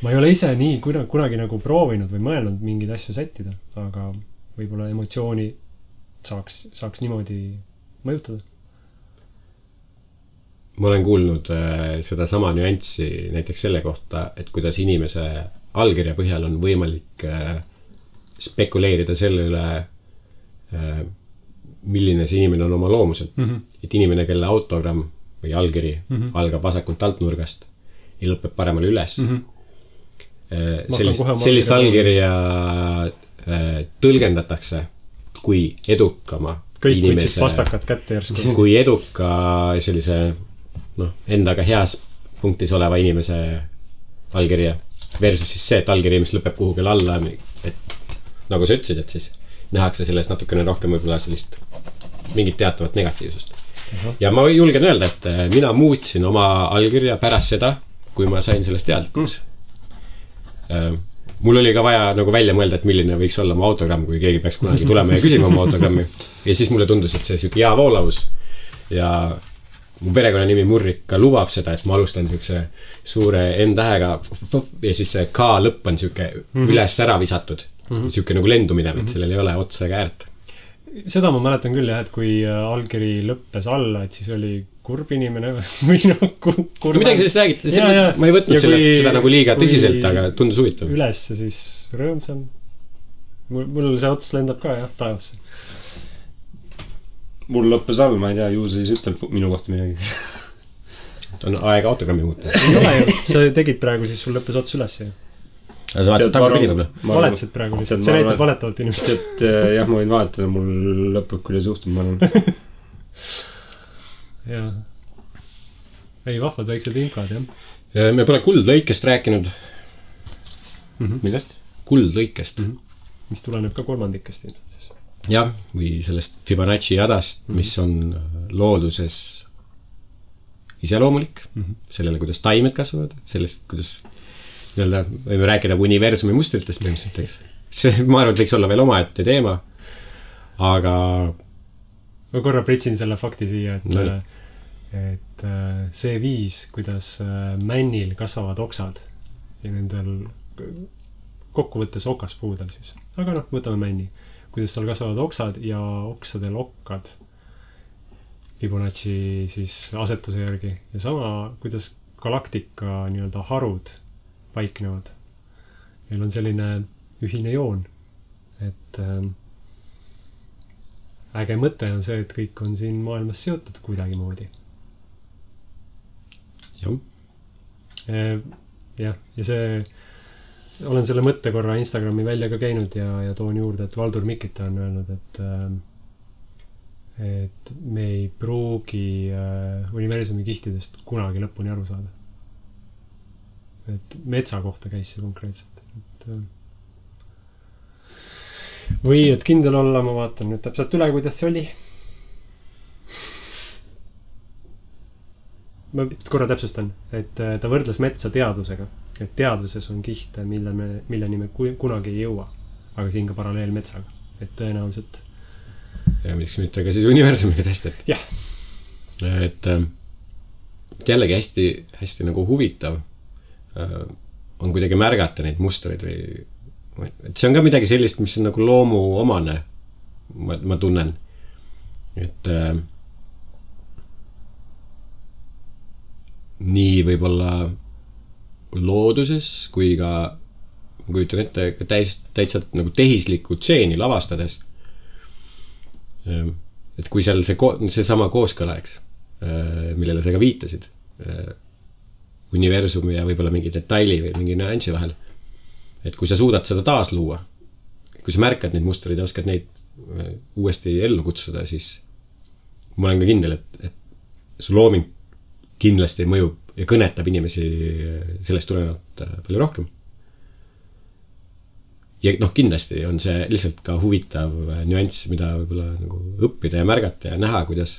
Ma ei ole ise nii kunagi nagu proovinud või mõelnud mingeid asju sättida, aga võib-olla emotsiooni saaks niimoodi mõjutada. Ma olen kuulnud seda sama nüanssi näiteks selle kohta, et kuidas inimese allkirja põhjal on võimalik spekuleerida selle üle, milline see inimene on oma loomuselt. Et inimene, kelle autogramm või allkiri algab vasakult altnurgast ja lõpeb paremale üles. Sellist allkirja tõlgendatakse kui edukama kõik inimese, võtsid pastakad kätte järsku. kui eduka sellise endaga heas punktis oleva inimese allkirja versus siis see, et allkiri, mis lõpeb kuhugil alla, et nagu sa ütlesid, et siis nähakse sellest natukene rohkem võib-olla sellist mingit teatavat negatiivsust. Ja ma julgen öelda, et mina muutsin oma allkirja pärast seda, kui ma sain sellest teadlikuks. Mul oli ka vaja nagu välja mõelda, et milline võiks olla mu autogramm, kui keegi peaks kunagi tulema ja küsima oma autogrammi. Ja siis mulle tundus, et see siuke hea voolavus ja mu perekonna nimi Murrika lubab seda, et ma alustan siukse suure N-tähega ja siis see K lõpp on siuke üles ära visatud. Siuke nagu lendumine, et sellel ei ole otsa ega äärt. Seda ma mäletan küll jah, et kui allkiri lõppes alla, et siis oli kurb inimene või kurb. Midagi sellest räägiti, ma ei võtnud seda nagu liiga tõsiselt, aga tundus huvitav. Üles siis rõõmsam. Mul see ots lendab ka jah, taevasse. Mul lõppes all, ma ei tea, ju siis ütleb minu kohta midagi. On aega autogrammi muuta. Ei ole ju, sa tegid praegu, siis sul lõppes ots üles ju. Aga sa vaatasid tagapidi võib-olla? Valetasid praegu lihtsalt, see näitab valetavalt inimest. Et jah, ma võin vahetada, mul lõpeb, kuidas juhtub, ma arvan. Jaa. Ei, vahvad väiksed infad, jah. Me pole kuldlõikest rääkinud. Millest? Kuldlõikest. Mis tuleneb ka kolmandikest ilmselt siis. Jah, või sellest Fibonacci jadast, mis on looduses iseloomulik. Sellele, kuidas taimed kasvavad, sellest, kuidas nii-öelda võime rääkida universumi mustritest põhimõtteliselt. See, ma arvan, et võiks olla veel omaette teema, aga ma korra pritsin selle fakti siia, et see viis, kuidas männil kasvavad oksad ja nendel kokkuvõttes okaspuudel siis. Aga võtame männi. Kuidas tal kasvavad oksad ja oksadel okkad Fibonacci siis asetuse järgi. Ja sama, kuidas galaktika nii-öelda harud paiknevad. Meil on selline ühine joon, et äge mõte on see, et kõik on siin maailmas seotud kuidagi moodi. Ja see olen selle mõtte korra Instagrami välja ka käinud ja toon juurde, et Valdur Mikita on öelnud, et me ei pruugi universumi kihtidest kunagi lõpuni aru saada. Et metsa kohta käis see konkreetselt. Või et kindel olla, ma vaatan nüüd täpselt üle, kuidas see oli. Ma korra täpsustan, et ta võrdles metsa teadusega. Et teaduses on kihte, milleni me kunagi ei jõua. aga siin ka paralleel metsaga, et tõenäoliselt. Ja miks mitte ka siis universumiga testet. Jah. Et jällegi hästi, hästi nagu huvitav on kuidagi märgata neid mustreid või et see on ka midagi sellist, mis on nagu loomu omane, ma tunnen. Et nii võib-olla looduses kui ka ma kujutan ette ka täitsa nagu tehislikku tseeni lavastades. Et kui seal see sama kooskõla, eks, millele sa ka viitasid, universumi ja võib-olla mingi detaili või mingi nüansi vahel, et kui sa suudad seda taas luua, kui sa märkad neid mustreid ja oskad neid uuesti ellu kutsuda, siis ma olen ka kindel, et su looming kindlasti mõjub ja kõnetab inimesi sellest tulenevalt palju rohkem. Ja noh, kindlasti on see lihtsalt ka huvitav nüanss, mida võib-olla nagu õppida ja märgata ja näha, kuidas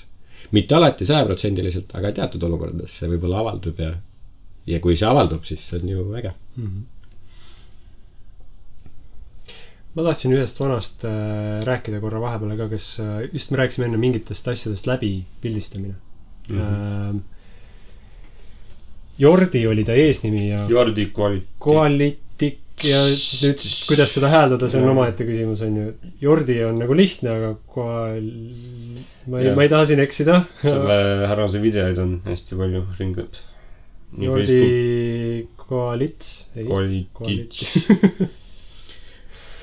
mitte alati 100%, aga teatud olukordades see võib-olla avaldub ja kui see avaldub, siis see on ju äge. Ma tahtsin ühest vanast rääkida korra vahepeal ka, kes just me rääkisime enne mingitest asjadest läbi pildistamine. Jordi oli ta eesnimi ja Jordi Koalitik ja nüüd kuidas seda hääldada, see on omaette küsimus, on ju. Jordi on nagu lihtne, aga ma ei taha siin eksida. Selle härrase videoid on hästi palju ringad. Jordi Koalits.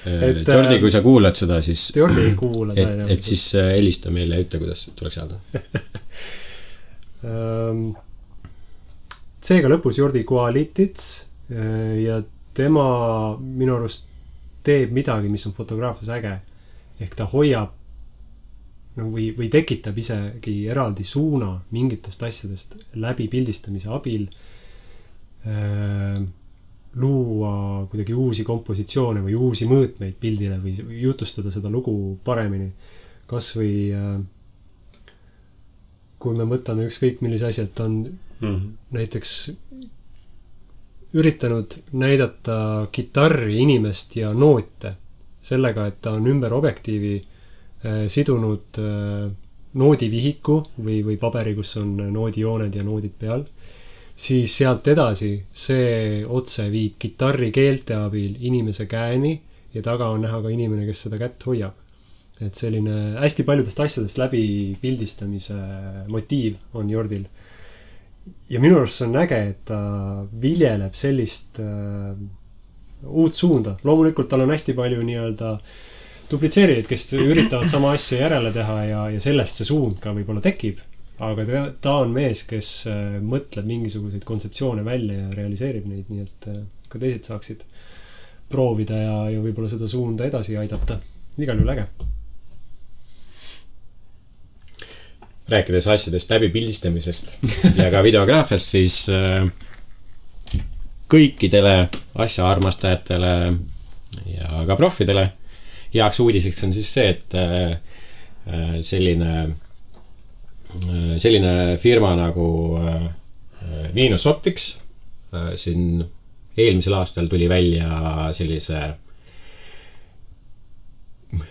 Jordi, kui sa kuulad seda, siis Jordi ei kuula et siis helista meile ja ütle, kuidas tuleks öelda. Seega lõpus Jordi Koalitits ja tema minu arust teeb midagi, mis on fotograafias äge. Ehk ta hoiab või tekitab isegi eraldi suuna mingitest asjadest läbi pildistamise abil, luua kuidagi uusi kompositsioone või uusi mõõtmeid pildile või jutustada seda lugu paremini. Kas või kui me mõtleme ükskõik millise asja, et on näiteks üritanud näidata kitarri, inimest ja noote sellega, et ta on ümber objektiivi sidunud noodivihiku või paberi, kus on noodijooned ja noodid peal, siis sealt edasi see otse viib kitarri keelte abil inimese käeni ja taga on näha ka inimene, kes seda kätt hoiab. Et selline hästi paljudest asjadest läbi pildistamise motiiv on Jordil. Ja minu arust on äge, et ta viljeleb sellist uut suunda. Loomulikult tal on hästi palju nii-öelda duplitseerijaid, kes üritavad sama asja järele teha ja sellest see suund ka võib-olla tekib. Aga ta on mees, kes mõtleb mingisuguseid kontseptsioone välja ja realiseerib neid, nii et ka teised saaksid proovida ja võib-olla seda suunda edasi aidata. Igal juhul äge. Rääkides asjadest läbi pildistamisest ja ka videograafiast, siis kõikidele asja armastajatele ja ka profidele heaks uudiseks on siis see, et selline firma nagu Venus Optics siin eelmisel aastal tuli välja sellise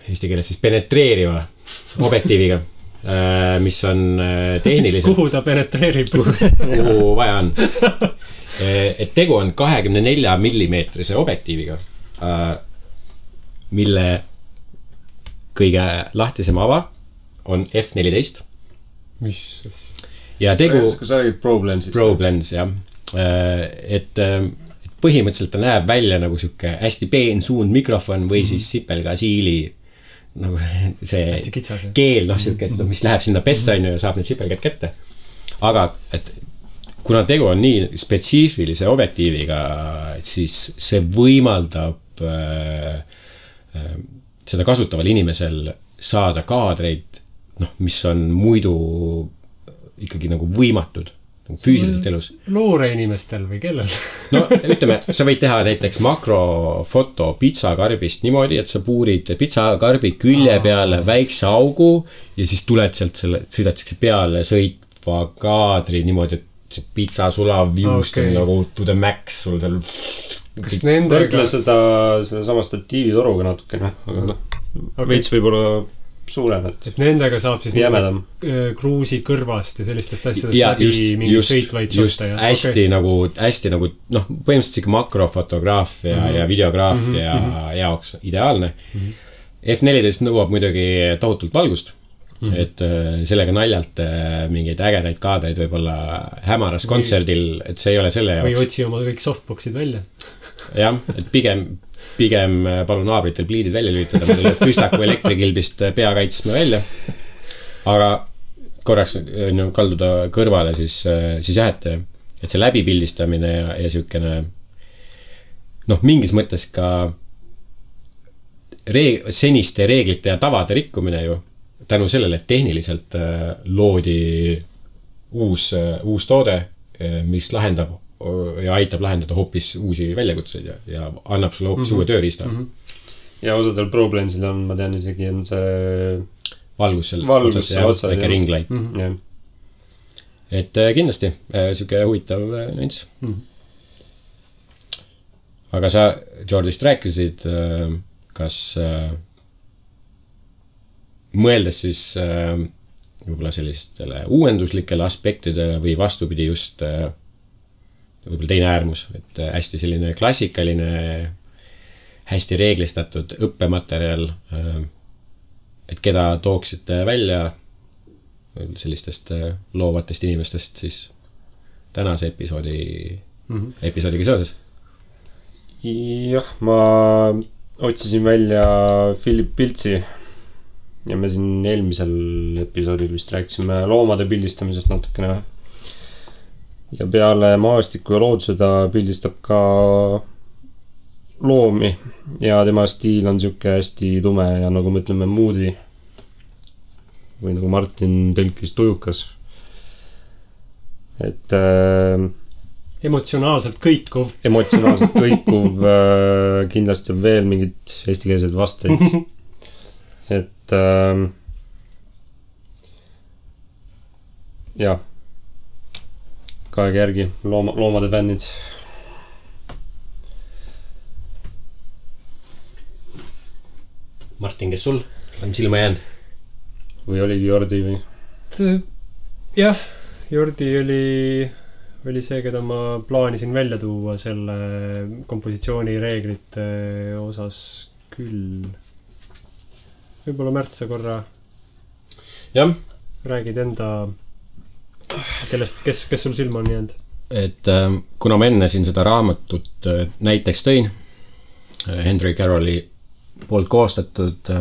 eesti keeles siis penetreeriva objektiiviga, mis on tehniliselt kuhu ta penetreerib? Kuhu vaja on. Et tegu on 24 millimeetrise objektiiviga, mille kõige lahtisem ava on F14. Mis? Ja tegu Kas sa olid ProBlensist? ProBlens, jah. Et põhimõtteliselt ta näeb välja nagu siuke hästi peen suund mikrofon või siis sipelga siili nagu see keel, siuke, et mis läheb sinna pessa ja saab need sipelgad kätte. Aga et kuna tegu on nii spetsiifilise objektiiviga, siis see võimaldab seda kasutaval inimesel saada kaadreid, mis on muidu ikkagi nagu võimatud füüsiliselt elus. Loore inimestel või kellel? No ütleme, sa võid teha näiteks makrofoto pitsakarbist niimoodi, et sa puurid pitsakarbi külje peale väikse augu ja siis tuled sealt sõidad peale sõitva kaadri niimoodi, et see pitsa sulav viust on nagu to the max, sul seal kas nendega... võrdle selle sama statiivitoruga natukene, aga veits võib-olla suurem, et nendega saab siis jämedam kruusi kõrvast ja sellistest asjadest läbi mingi sõitvaid sotta. Hästi nagu, põhimõtteliselt siuke makrofotograafia ja videograafia jaoks ideaalne. F14 nõuab muidugi tohutult valgust, et sellega naljalt mingeid ägedaid kaadreid võib-olla hämaras kontserdil, et see ei ole selle jaoks. Või otsi oma kõik softboxid välja. Jah, et pigem palun naabritel pliidid välja lülitada, ma tuleb püstaku elektrikilbist pea kaitsma välja. Aga korraks kalduda kõrvale, siis jah, et see läbipildistamine ja siukene mingis mõttes ka seniste reeglite ja tavade rikkumine ju tänu sellele, et tehniliselt loodi uus toode, mis lahendab ja aitab lahendada hoopis uusi väljakutseid ja annab sulle hoopis uue tööriista. Ja osadel ProBlensil on, ma tean isegi, on see valgus otsas ja ringlight. Et kindlasti siuke huvitav nüanss. Aga sa Jordist rääkisid, kas mõeldes siis võib-olla sellistele uuenduslikele aspektidele või vastupidi just võib-olla teine äärmus, et hästi selline klassikaline, hästi reeglistatud õppematerjal, et keda tooksite välja sellistest loovatest inimestest siis tänase episoodiga seoses? Jah, ma otsisin välja Philip Piltsi ja me siin eelmisel episoodil vist rääkisime loomade pildistamisest natukene. Ja peale maastiku ja looduse ta pildistab ka loomi ja tema stiil on siuke hästi tume ja nagu me ütleme moody või nagu Martin tõlkis tujukas. Et emotsionaalselt kõikuv. Kindlasti on veel mingid eestikeelsed vasteid. Et jah, kaega järgi loomade fännid. Martin, kes sul on silma jäänud? Või oligi Jordi või? Jah, Jordi oli see, keda ma plaanisin välja tuua selle kompositsiooni reeglite osas küll. Võib-olla Märt, sa korra räägid enda, kes sul silma on jäänud? Et kuna ma enne siin seda raamatut näiteks tõin, Henry Carrolli poolt koostatud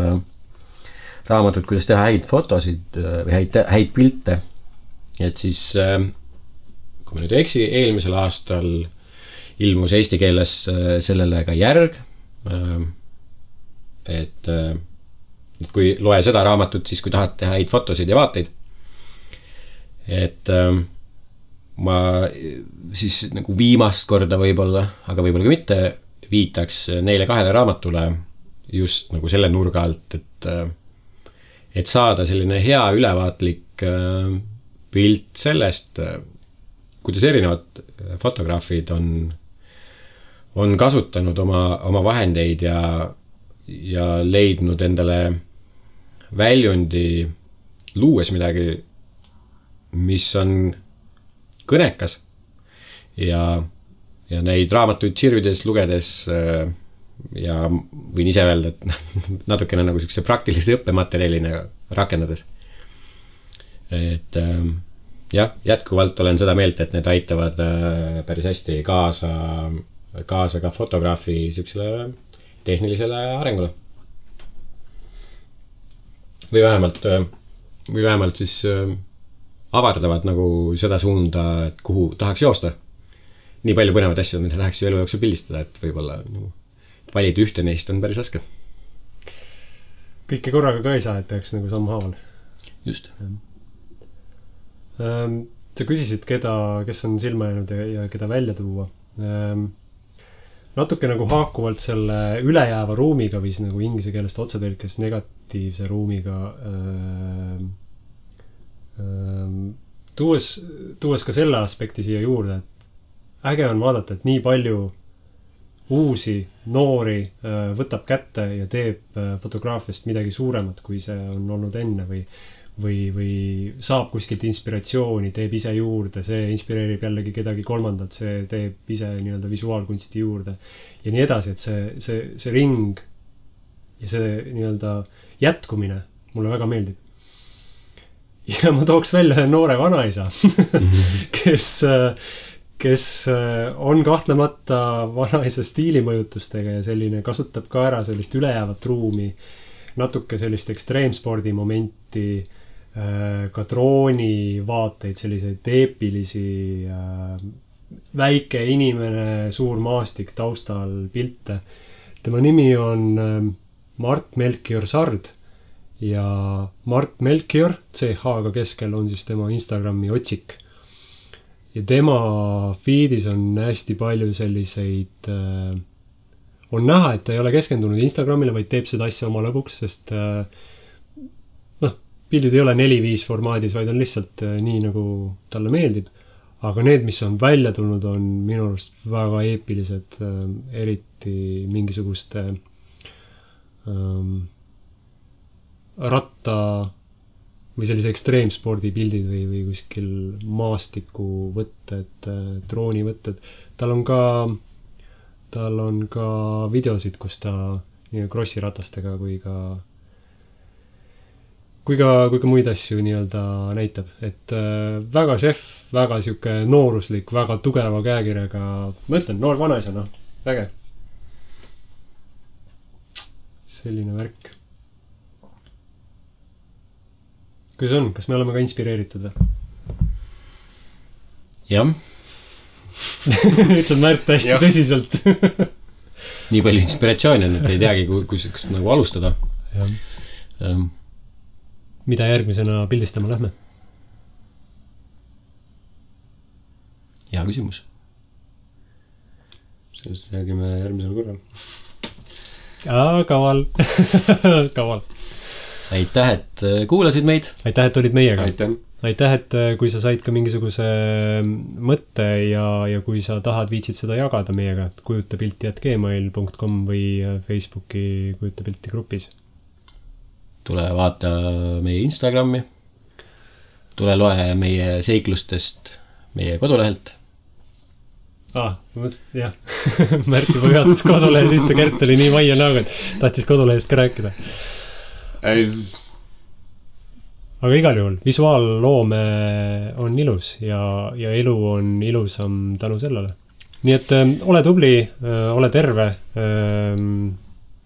raamatut, kuidas teha häid fotosid või häid pilte, et siis kui ma nüüd ei eksi, eelmisel aastal ilmus eesti keeles sellele ka järg, et kui loe seda raamatut, siis kui tahad teha häid fotosid ja vaateid, et ma siis nagu viimast korda võib-olla, aga võib-olla ka mitte, viitaks neile kahele raamatule just nagu selle nurga alt, et saada selline hea ülevaatlik pilt sellest, kuidas erinevad fotograafid on kasutanud oma vahendeid ja leidnud endale väljundi luues midagi, mis on kõnekas ja neid raamatuid sirvides lugedes ja võin ise öelda, et natukene nagu selline praktilise õppematerjalina rakendades. Et jah, jätkuvalt olen seda meelt, et need aitavad päris hästi kaasa ka fotograafi sellisele tehnilisele arengule. Või vähemalt siis avardavad nagu seda suunda, et kuhu tahaks joosta. Nii palju põnevad asju, mida tahaks elu jooksul pildistada, et võib-olla valida ühte neist on päris raske. Kõike korraga ka ei saa, et peaks nagu sammhaaval. Just. Sa küsisid, kes on silma jäänud ja keda välja tuua. Natuke nagu haakuvalt selle ülejääva ruumiga või nagu inglise keelest otsetõlkes negatiivse ruumiga tuues ka selle aspekti siia juurde, et äge on vaadata, et nii palju uusi, noori võtab kätte ja teeb fotograafiast midagi suuremat, kui see on olnud enne või saab kuskilt inspiratsiooni, teeb ise juurde, see inspireerib jällegi kedagi kolmandat, see teeb ise nii-öelda visuaalkunsti juurde ja nii edasi, et see ring ja see nii-öelda jätkumine mulle väga meeldib. Ja ma tooks välja ühe noore vanaisa, kes on kahtlemata vanaisa stiilimõjutustega ja selline kasutab ka ära sellist ülejäävat ruumi, natuke sellist ekstreemspordi momenti, ka drooni vaateid, selliseid eepilisi, väike inimene, suur maastik taustal pilte. Tema nimi on Mart Melchior Sard ja Mart Melchior, CH-ga keskel on siis tema Instagrami otsik. Ja tema feedis on hästi palju selliseid, on näha, et ta ei ole keskendunud Instagramile, vaid teeb seda asja oma lõbuks, sest pildid ei ole 4-5 formaadis, vaid on lihtsalt nii, nagu talle meeldib. Aga need, mis on välja tulnud, on minu arust väga eepilised, eriti mingisuguste ratta või sellise ekstreemspordi pildid või kuskil maastiku võtted, drooni võtted. Tal on ka videosid, kus ta nii krossiratastega kui ka muid asju nii-öelda näitab. Et väga šef, väga siuke nooruslik, väga tugeva käekirjaga, ma ütlen, noor vanaisa, väge. Selline värk. Kuidas on? Kas me oleme ka inspireeritud? Jah. Ütled Märt hästi tõsiselt. Nii palju inspiratsiooni on, et ei teagi, kus nagu alustada. Mida järgmisena pildistama lähme? Hea küsimus. Sellest räägime järgmisel korral. Kaval. Kaval. Aitäh, et kuulasid meid. Aitäh, et olid meiega. Aitäh, et kui sa said ka mingisuguse mõtte ja kui sa tahad, viitsid seda jagada meiega, kujutapilti@gmail.com või Facebooki kujutapilti grupis. Tule vaata meie Instagrami. Tule loe meie seiklustest meie kodulehelt. Jah. Märt juba juhatas kodulehe sisse, Kert oli nii vaia näoga, et tahtis kodulehest ka rääkida. Aga igal juhul, visuaalloome on ilus ja elu on ilusam tänu sellele. Nii et ole tubli, ole terve,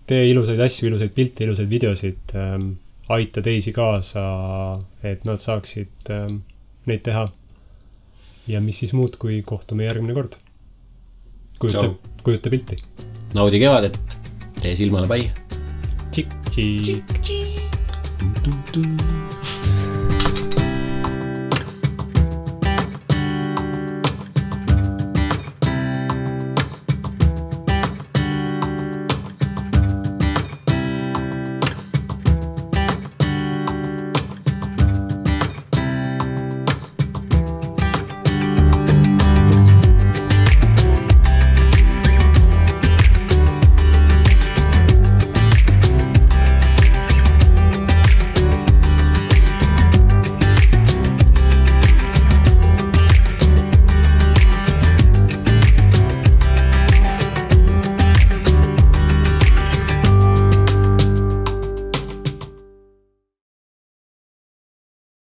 tee ilusaid asju, ilusaid pilte, ilusaid videosid, aita teisi kaasa, et nad saaksid neid teha. Ja mis siis muud, kui kohtume järgmine kord. Kujuta pilti. Naudi kevadet, tee silmale pai. Tšik-tšik.